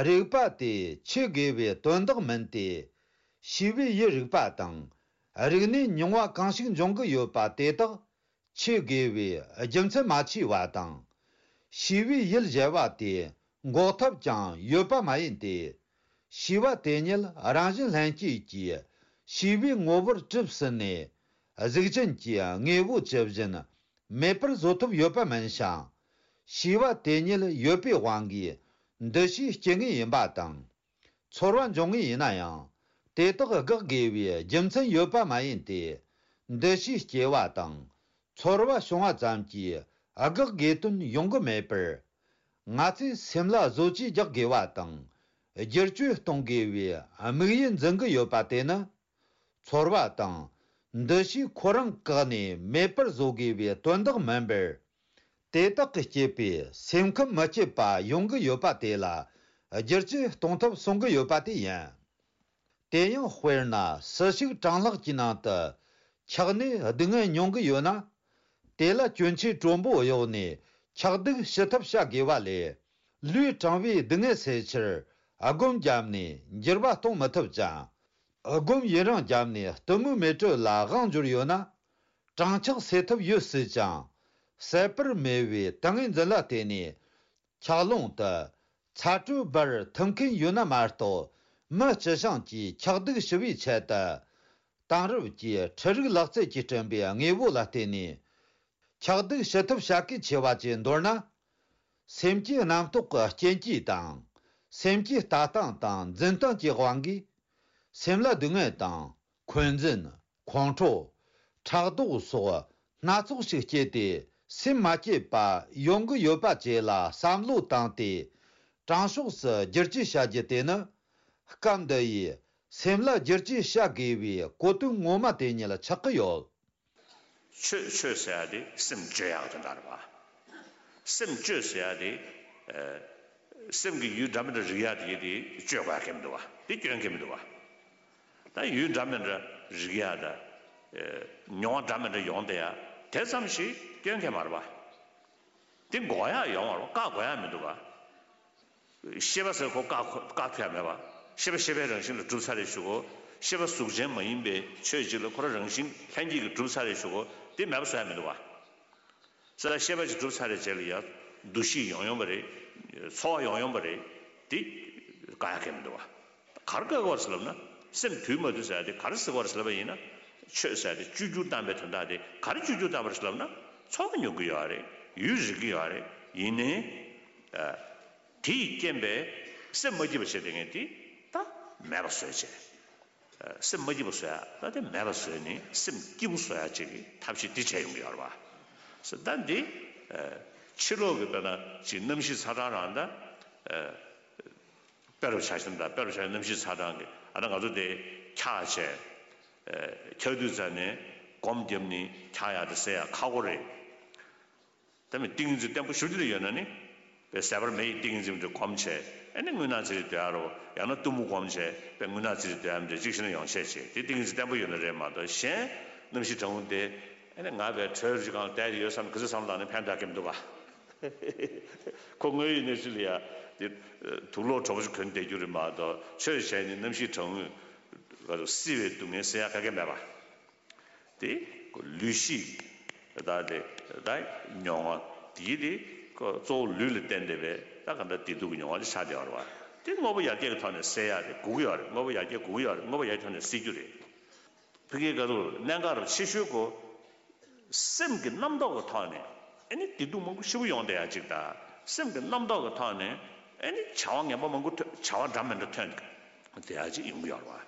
རིག་པ་དེ་ཆོས་དགེ་བའི་དོན་དག་མིན་ཏེ། ཤེས་པའི་ཡུལ་རིག་པ་དང་། རིག་གནས་མྱོང་བ་གང་ཞིག་འབྱུང་གི་ཡོད་པ་དེ་དག་ཆོས་དགེ་བའི་རྒྱུ་མཚན་མ་མཆིས་པ་དང་། ཤེས་པའི་ཡུལ་གཞལ་བ་དེ་འགོག་ཐབས་ཀྱང་ཡོད་པ་མ་ཡིན་ཏེ། ཤེས་པ་དེ་ཉིད་རང་བཞིན་ལྷན་སྐྱེས་ཀྱིས་ཤེས་པའི་ངོ་བོར་གྲུབ་ཟིན་ནས། གཟུགས་ཅན་གྱི་དངོས་པོ་ཇི་བཞིན་མེད་པར་བཟོ་ཐབས་ཡོད་པ་མིན་ཞིང་། ཤེས་པ་དེ་ཉིད་ཡོད་པའི་དབང་གིས་འདུ་ཤེས་སྐྱེ་ངེས་ཡིན་པ་དང་། ཚོར་བ་འབྱུང་ངེས་ཡིན་ན་ཡང་། དེ་དག་དགག་དགོས་པའི་རྒྱུ་མཚན་ཡོད་པ་མ་ཡིན་ཏེ། འདུ་ཤེས་སྐྱེ་བ་དང་། ཚོར་བ་བྱུང་བ་ཙམ་གྱིས་དགག་དགོས་དོན་ཡོང་གི་མེད་པར། ང་ཚོས་སེམས་ལ་བཟོ་བཅོས་རྒྱག་དགོས་པ་དང་ བསྒྱུར་བཅོས་གཏོང་དགོས་པའི་དམིགས་ཡུལ་འཛིན་གྱི་ཡོད་པ་དེ་ནི། ཚོར་བ་དང་། འདུ་ཤེས་ཁོ་རང་བཀག་ནས་མེད་པར་བཟོ་དགོས་པའི་དོན་དག་མིན་པར། དེ་དག་གིས་བསྐྱེད་པའི་སེམས་ཁམས་མི་སྐྱིད་པ་ཡོང་གི་ཡོད་པ་དེ་ལ་བསྒྱུར་བཅོས་གཏོང་ཐབས་གསུང་གི་ཡོད་པ་དེ་ཡིན། དེ་ཡང་དཔེར་ན་སྲིད་ཞུགས་གྲང་ལྷགས་ཀྱི་ནང་དུ་ཆགས་ནས་སྡུག་བསྔལ་མྱོང་གི་ཡོད་ན། དེ་ལ་གྱོན་ཆས་དྲོན་པོ་གཡོགས་ནས་ཆགས་སྡུག་ཞི་ཐབས་བྱ་དགོས་པ་ལས། ལུས་གྲང་བའི་སྡུག་བསྔལ་སེལ་ཕྱིར་སྒོམ་བརྒྱབ་ནས་འགྱུར་བ་གཏོང་མི་ཐུབ་ཅིང་། སྒོམ་ཡུན་རིང་བརྒྱབ་ནས་གཏི་མུག་མེ་དྲོད་ལ་དབང་འབྱོར་ཡོད་ན། གྲང་འཁྱག་སེལ་ཐབས་ཡོད་སྲིད་ཀྱང་། ཟད་པར་མེད་པའི་ཏིང་ངེ་འཛིན་ལ་བརྟེན་ནས། འཁྱག་རླུང་དུ་ཚ་དྲོད་འབར་ཐུབ་མཁན་ཡོད་ན་མ་གཏོགས། མི་སྤྱི་བྱང་གིས་འཁྱག་སྡུག་ཞི་བའི་ཆེད་དུ། དེང་རབས་ཀྱི་འཕྲུལ་རིག་ལག་རྩལ་གྱིས་བསྐྲུན་པའི་དངོས་པོ་ལ་བརྟེན་ནས། འཁྱག་སྡུག་ཞི་ཐབས་བྱ་གལ་ཆེ་བ་ཅིག་མདོར་ན། སེམས་ཀྱི་རྣམ་རྟོག་གི་རྐྱེན་གྱིས་དང་། སེམས་ཀྱི་ལྟ་སྟངས་དང་འཛིན་སྟངས་ཀྱི་དབང་གིས། སེམས་ལ་སྡུག་བསྔལ་དང་། འཁོན་འཛིན། ཁོང་ཁྲོ། ཕྲག་དོག་སོགས་སྣ་ཚོགས་ཤིག་སྐྱེས་ཏེ། སེམས་མ་སྐྱིད་པ་ཡོང་གི་ཡོད་པ་བཅས་ལ་བསམ་བློ་བཏང་སྟེ། དྲང་ཕྱོགས་སུ་བསྒྱུར་བཅོས་བྱ་རྒྱུ་དེ་ནི། སྐབས་འདི་ཡི་སེམས་ལ་བསྒྱུར་བཅོས་བྱ་དགོས་པའི་གོ་དོན་ངོ་མ་དེ་ཉིད་ཆགས་ཀྱི་ཡོད། ཆོས་ཆོས་ཟེར་ཡ་དེ་སེམས་བཅོས་ཡག་དོན་དག་རེད་བ། སེམས་བཅོས་ཟེར་ཡ་དེ། ཨ། སེམས་ཀྱི་ཡུལ་འདྲ་མི་འདྲ་རིག་ཡ་དེ་དེ་བཅོས་དགོས་ཡ་གལ་མི་འདུག་བ། དེ་སྐྱོན་གལ་མི་འདུག་བ། ད་ཡུལ་འདྲ་མི་འདྲ་རིག་ཡ་ད། ཨ། མྱོང་བ་འདྲ་མི་འདྲ་ཡོང་བསྡད་ཡ་དེ་ཙམ་ཞིག་སྐྱོན་གལ་མ་རེད་བ། དེ་འགོག་ཡ་ཡོང་བ་རེད་བ། བཀག་དགོས་ཡ་མི་འདུག་བ། ཤེས་པ་ཟེར་ཁོ་བཀག་བཀག་ཐུབ་ཡ་མེད་པ། ཤེས་པ་ཤེས་པའི་རང་བཞིན་ལ་གྲུབ་ཚར་རེ་ཞུ་གོ། ཤེས་པ་གཟུགས་ཅན་མ་ཡིན་པའི་ཆོས་གཅིག་ལ་ཁོ་རང་རང་བཞིན་ལྷན་སྐྱེས་ཀྱིས་གྲུབ་ཚར་རེ་ཞུ་གོ། དེ་མེད་པ་བཟོ་ཡ་མི་འདུག་བ། ས་ལ་ཤེས་པ་ཅིག་གྲུབ་ཚར་རེ་རྗེས་ལ་ཡ་འདུ་ཤེས་ཡོང་ཡོང་པ་རེད། ཚོར་བ་ཡོང་ཡོང་པ་རེད། དེ་དགག་ཡ་གལ་མི་འདུག་བ། ག་རེ་བཀག་དགོས་ཟེར་ལབ་ན། སེམས་དུལ་མ་དུལ་ཟེར་ཡ་དེ་ག་རེ་ཟེར་དགོས་ཟེར་ལབ་པ་ཡིན་ན། ཆོས་ཟེར་ཡ་དེ་བཅོས་བསྒྱུར་བཏང་པའི་དོན་དག་དེ་ག་རེ་བཅོས་བསྒྱུར་བཏང་པ་རེད་ཟེར་ལབ་ན། ཚོར་བ་མྱོང་གི་ཡོད་རེད། ཡུལ་རིག་གི་ཡོད་རེད། ཡིན་ནའི། ཨ། དེ་ཡི་རྐྱེན་པས་སེམས་མ་སྐྱིད་པ་བྱེད་དེ་ངས་དེ་ད་མེད་པ་བཟོས་བྱས། ཨ། སེམས་མ་སྐྱིད་པ་བཟོ་ཡ་ད་དེ་མེད་པ་བཟོས་ནས་སེམས་སྐྱིད་པོ་བཟོ་ཡ་ཅིག་གི་ཐབས་ཤེས་དེ་བྱས་ཡོང་གི་ཡོད་རེད་བ། ཟེར་ད་འདི། ཨ། ཕྱི་ལོགས་ཀྱི་དཔེར་ན་ཅིག་གནམ་གཤིས་ཚ་གྲང་རང་ད། ཨ། དཔེ་རུ་ཆ་བཞག་ན་ད་དཔེ་རུ་ཆ་བཞག་ན་གནམ་གཤིས་ཚ་གྲང་གི་ཨ་ད་ང་ཚོ་དེ་འཁྱག་བྱས། ཨ། འཁྱག་དུས་ཙ་ནས་སྒོམ་བརྒྱབ་ནས་འཁྱག་ཡག་དེ་སེལ་ཡག་ཁག་པོ་རེད། ད་མི་ཏིང་ངེ་འཛིན་བརྟན་པོ་ཞེ་པོ་ཅིག་ཡོད་ན་ནི། དཔེ་ཟད་པར་མེ་ཡི་ཏིང་ངེ་འཛིན་དེ་སྒོམ་བྱས་ཨ་ནི་རྔུལ་ནག་ཙི་ཙི་སྡོད་ཡག་རོ། ཡང་ན་གཏུམ་མོ་སྒོམ་བྱས་དཔེ་རྔུལ་ནག་ཙི་ཙི་སྡོད་ཡག་འདྲ་ཅིག་ཤེས་ན་ཡོང་ཤས་བྱས་དེ་ཏིང་ངེ་འཛིན་བརྟན་པོ་ཡོད་ན་རེད་མ་གཏོགས་གཞན་གནམ་གཤིས་གྲང་མོ་དེ་ཨ་ནི་ང་དཔེ་དྲོད་རི་སྒང་བསྡད་ཡོད་བསམ་ག་ཚོད་བསམ་བློ་བཏང་ནས་ཕན་ཐོགས་ཀྱི་མི་འདུག་ག་ཁོ་དངོས་ཡོད་གནས་ཚུལ་ལ་ཡ་དེ་དུག་ལོག་དྲོ་པོ་ཞིག་གོན་བསྡད་རྒྱུ་རེད་མ་གཏོགས་ཆོས་བྱས་ནས་གནམ་གཤིས་གྲང་མོས་བསིལ་བའི་སྡུག་བསྔལ་སེལ་ཡག་ག་གེ་མེད་པ། དེ་ལུས་ཤེས་ཀྱི་ད་དེ་ད་མྱོང་བ་དེ་དེ་གཙོ་བོ་ལུས་ལ་བརྟེན་བསྡད་པའི་ད་ག་འདྲ་བདེ་སྡུག་གི་མྱོང་བ་ཅིག་ཆགས་བསྡད་ཡོད་རེད་བ། དེ་དངོས་པོ་ཡར་རྒྱས་ཀྱི་ཐོག་ནས་སེལ་ཡག་དེ་དགོས་ཀྱི་ཡོད་རེད། དངོས་པོ་ཡར་རྒྱས་དགོས་ཀྱི་ཡོད་རེད། དངོས་པོ་ཡར་རྒྱས་ཐོག་ནས་སེལ་རྒྱུ་རེད། ཕ་གིའི་ག་ཚོད་གནད་འགག་རུ་ཆེ་ཤོས་ཀོ། སེམས་ཀྱི་རྣམ་རྟོག་གི་ཐོག་ནས་ཨ་ནི་བདེ་སྡུག་མང་པོ་ཞེ་པོ་ཡོང་བསྡད་ཡག་ཅིག་དང་། སེམས་ཀྱི་རྣམ་རྟོག་གི་ཐོག་ནས་ཨ་ནི་བྱ་བ་ངན་པ་མང་པོ་ཐོན། བྱ་བ་འདྲ་མི་འདྲ་ཐོན་བསྡད་ཡག་ཅིག་ཡོང་གི་ཡོད་རེད་བ།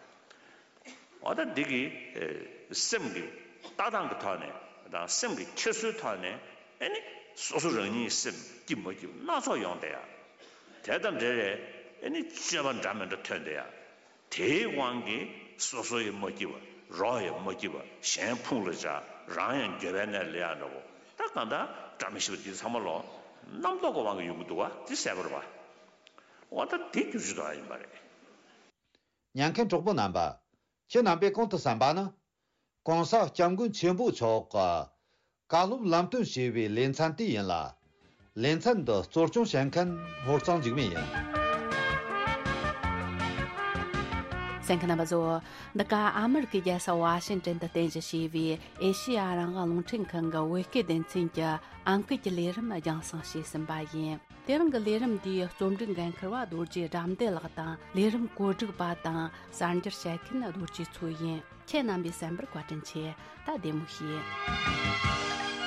འོ་ད་འདི་གི་ཨེ་སེམས་ཀྱི་ལྟ་སྟངས་ཀྱི་ཐོག་ནས་དང་སེམས་ཀྱི་འཁྱེར་སོའི་ཐོག་ནས་ཨེ་ནི་སོ་སོ་རང་ཉིད་སེམས་སྐྱིད་མ་སྐྱིད་སྣ་ཚོགས་ཡོང་བསྡད་ཡ། དེ་དང་འབྲེལ་བའི་ཨེ་ནི་སྤྱོད་པ་འདྲ་མི་འདྲ་ཐོན་བསྡད་ཡ། དེའི་དབང་གིས་སོ་སོ་ཡང་མ་སྐྱིད་པ། རོགས་ཡང་མ་སྐྱིད་པ། གཞན་ཕུང་ལ་བཅག་རང་ཡང་འགྱོད་པའི་གནས་ལ་སླེབས་ཡ་འདྲ་པོ། ད་གང་ལྟར་འདྲ་མི་ཤེས་པ་འདི་ཚང་མ་ལོ་རྣམ་རྟོག་གི་དབང་གིས་ཡོང་གི་འདུག་བ། འདི་གསལ་པོ་རེད་བ། འོ་ད་འདི་བསྒྱུར་བཅོས་གཏོང་ཡ་ཡིན་པ་རེད། ཉན་མཁན་གྲོགས་པོ་རྣམ་པ། ཁྱེད་རྣམ་པས་གོང་དུ་གསན་པ་ནི། གོང་ས་སྐྱབས་མགོན་ཆེན་པོ་མཆོག་གི་བཀའ་སློབ་ལམ་སྟོན་ཞེས་པའི་ལེ་ཚན་དེ་ཡིན་ལ། ལེ་ཚན་འདི་གཙོ་སྐྱོང་བྱེད་མཁན་ཧོར་གཙང་འཇིགས་མེད་ཡིན། གསན་མཁན་རྣམ་པ་ཚོ། འདི་ག་ཨ་མི་རི་ཀའི་རྒྱལ་ས་ཝ་ཤིང་ཏན་དུ་རྟེན་གཞི་བྱས་པའི་ཨེ་ཤེ་ཡ་རང་དབང་རླུང་འཕྲིན་ཁང་གི་བོད་སྐད་སྡེ་ཚན་གྱི་ཨང་ཀི་གི་ལས་རིམ་རྒྱང་སྲིང་བྱས་ཟིན་པ་ཡིན། དེ་རིང་གི་ལས་རིམ་འདིའི་རྩོམ་སྒྲིག་འགན་འཁུར་བ་རྡོ་རྗེ་དགྲ་འདུལ་ལགས་དང་། ལས་རིམ་གོ་སྒྲིག་པ་དང་གསར་འགྱུར་བཤད་མཁན་རྡོ་རྗེ་མཚོ་ཡིན། ཁྱེད་རྣམ་པས་གསན་པར་བཀའ་དྲིན་ཆེ། ད་བདེ་མོ་བྱོས།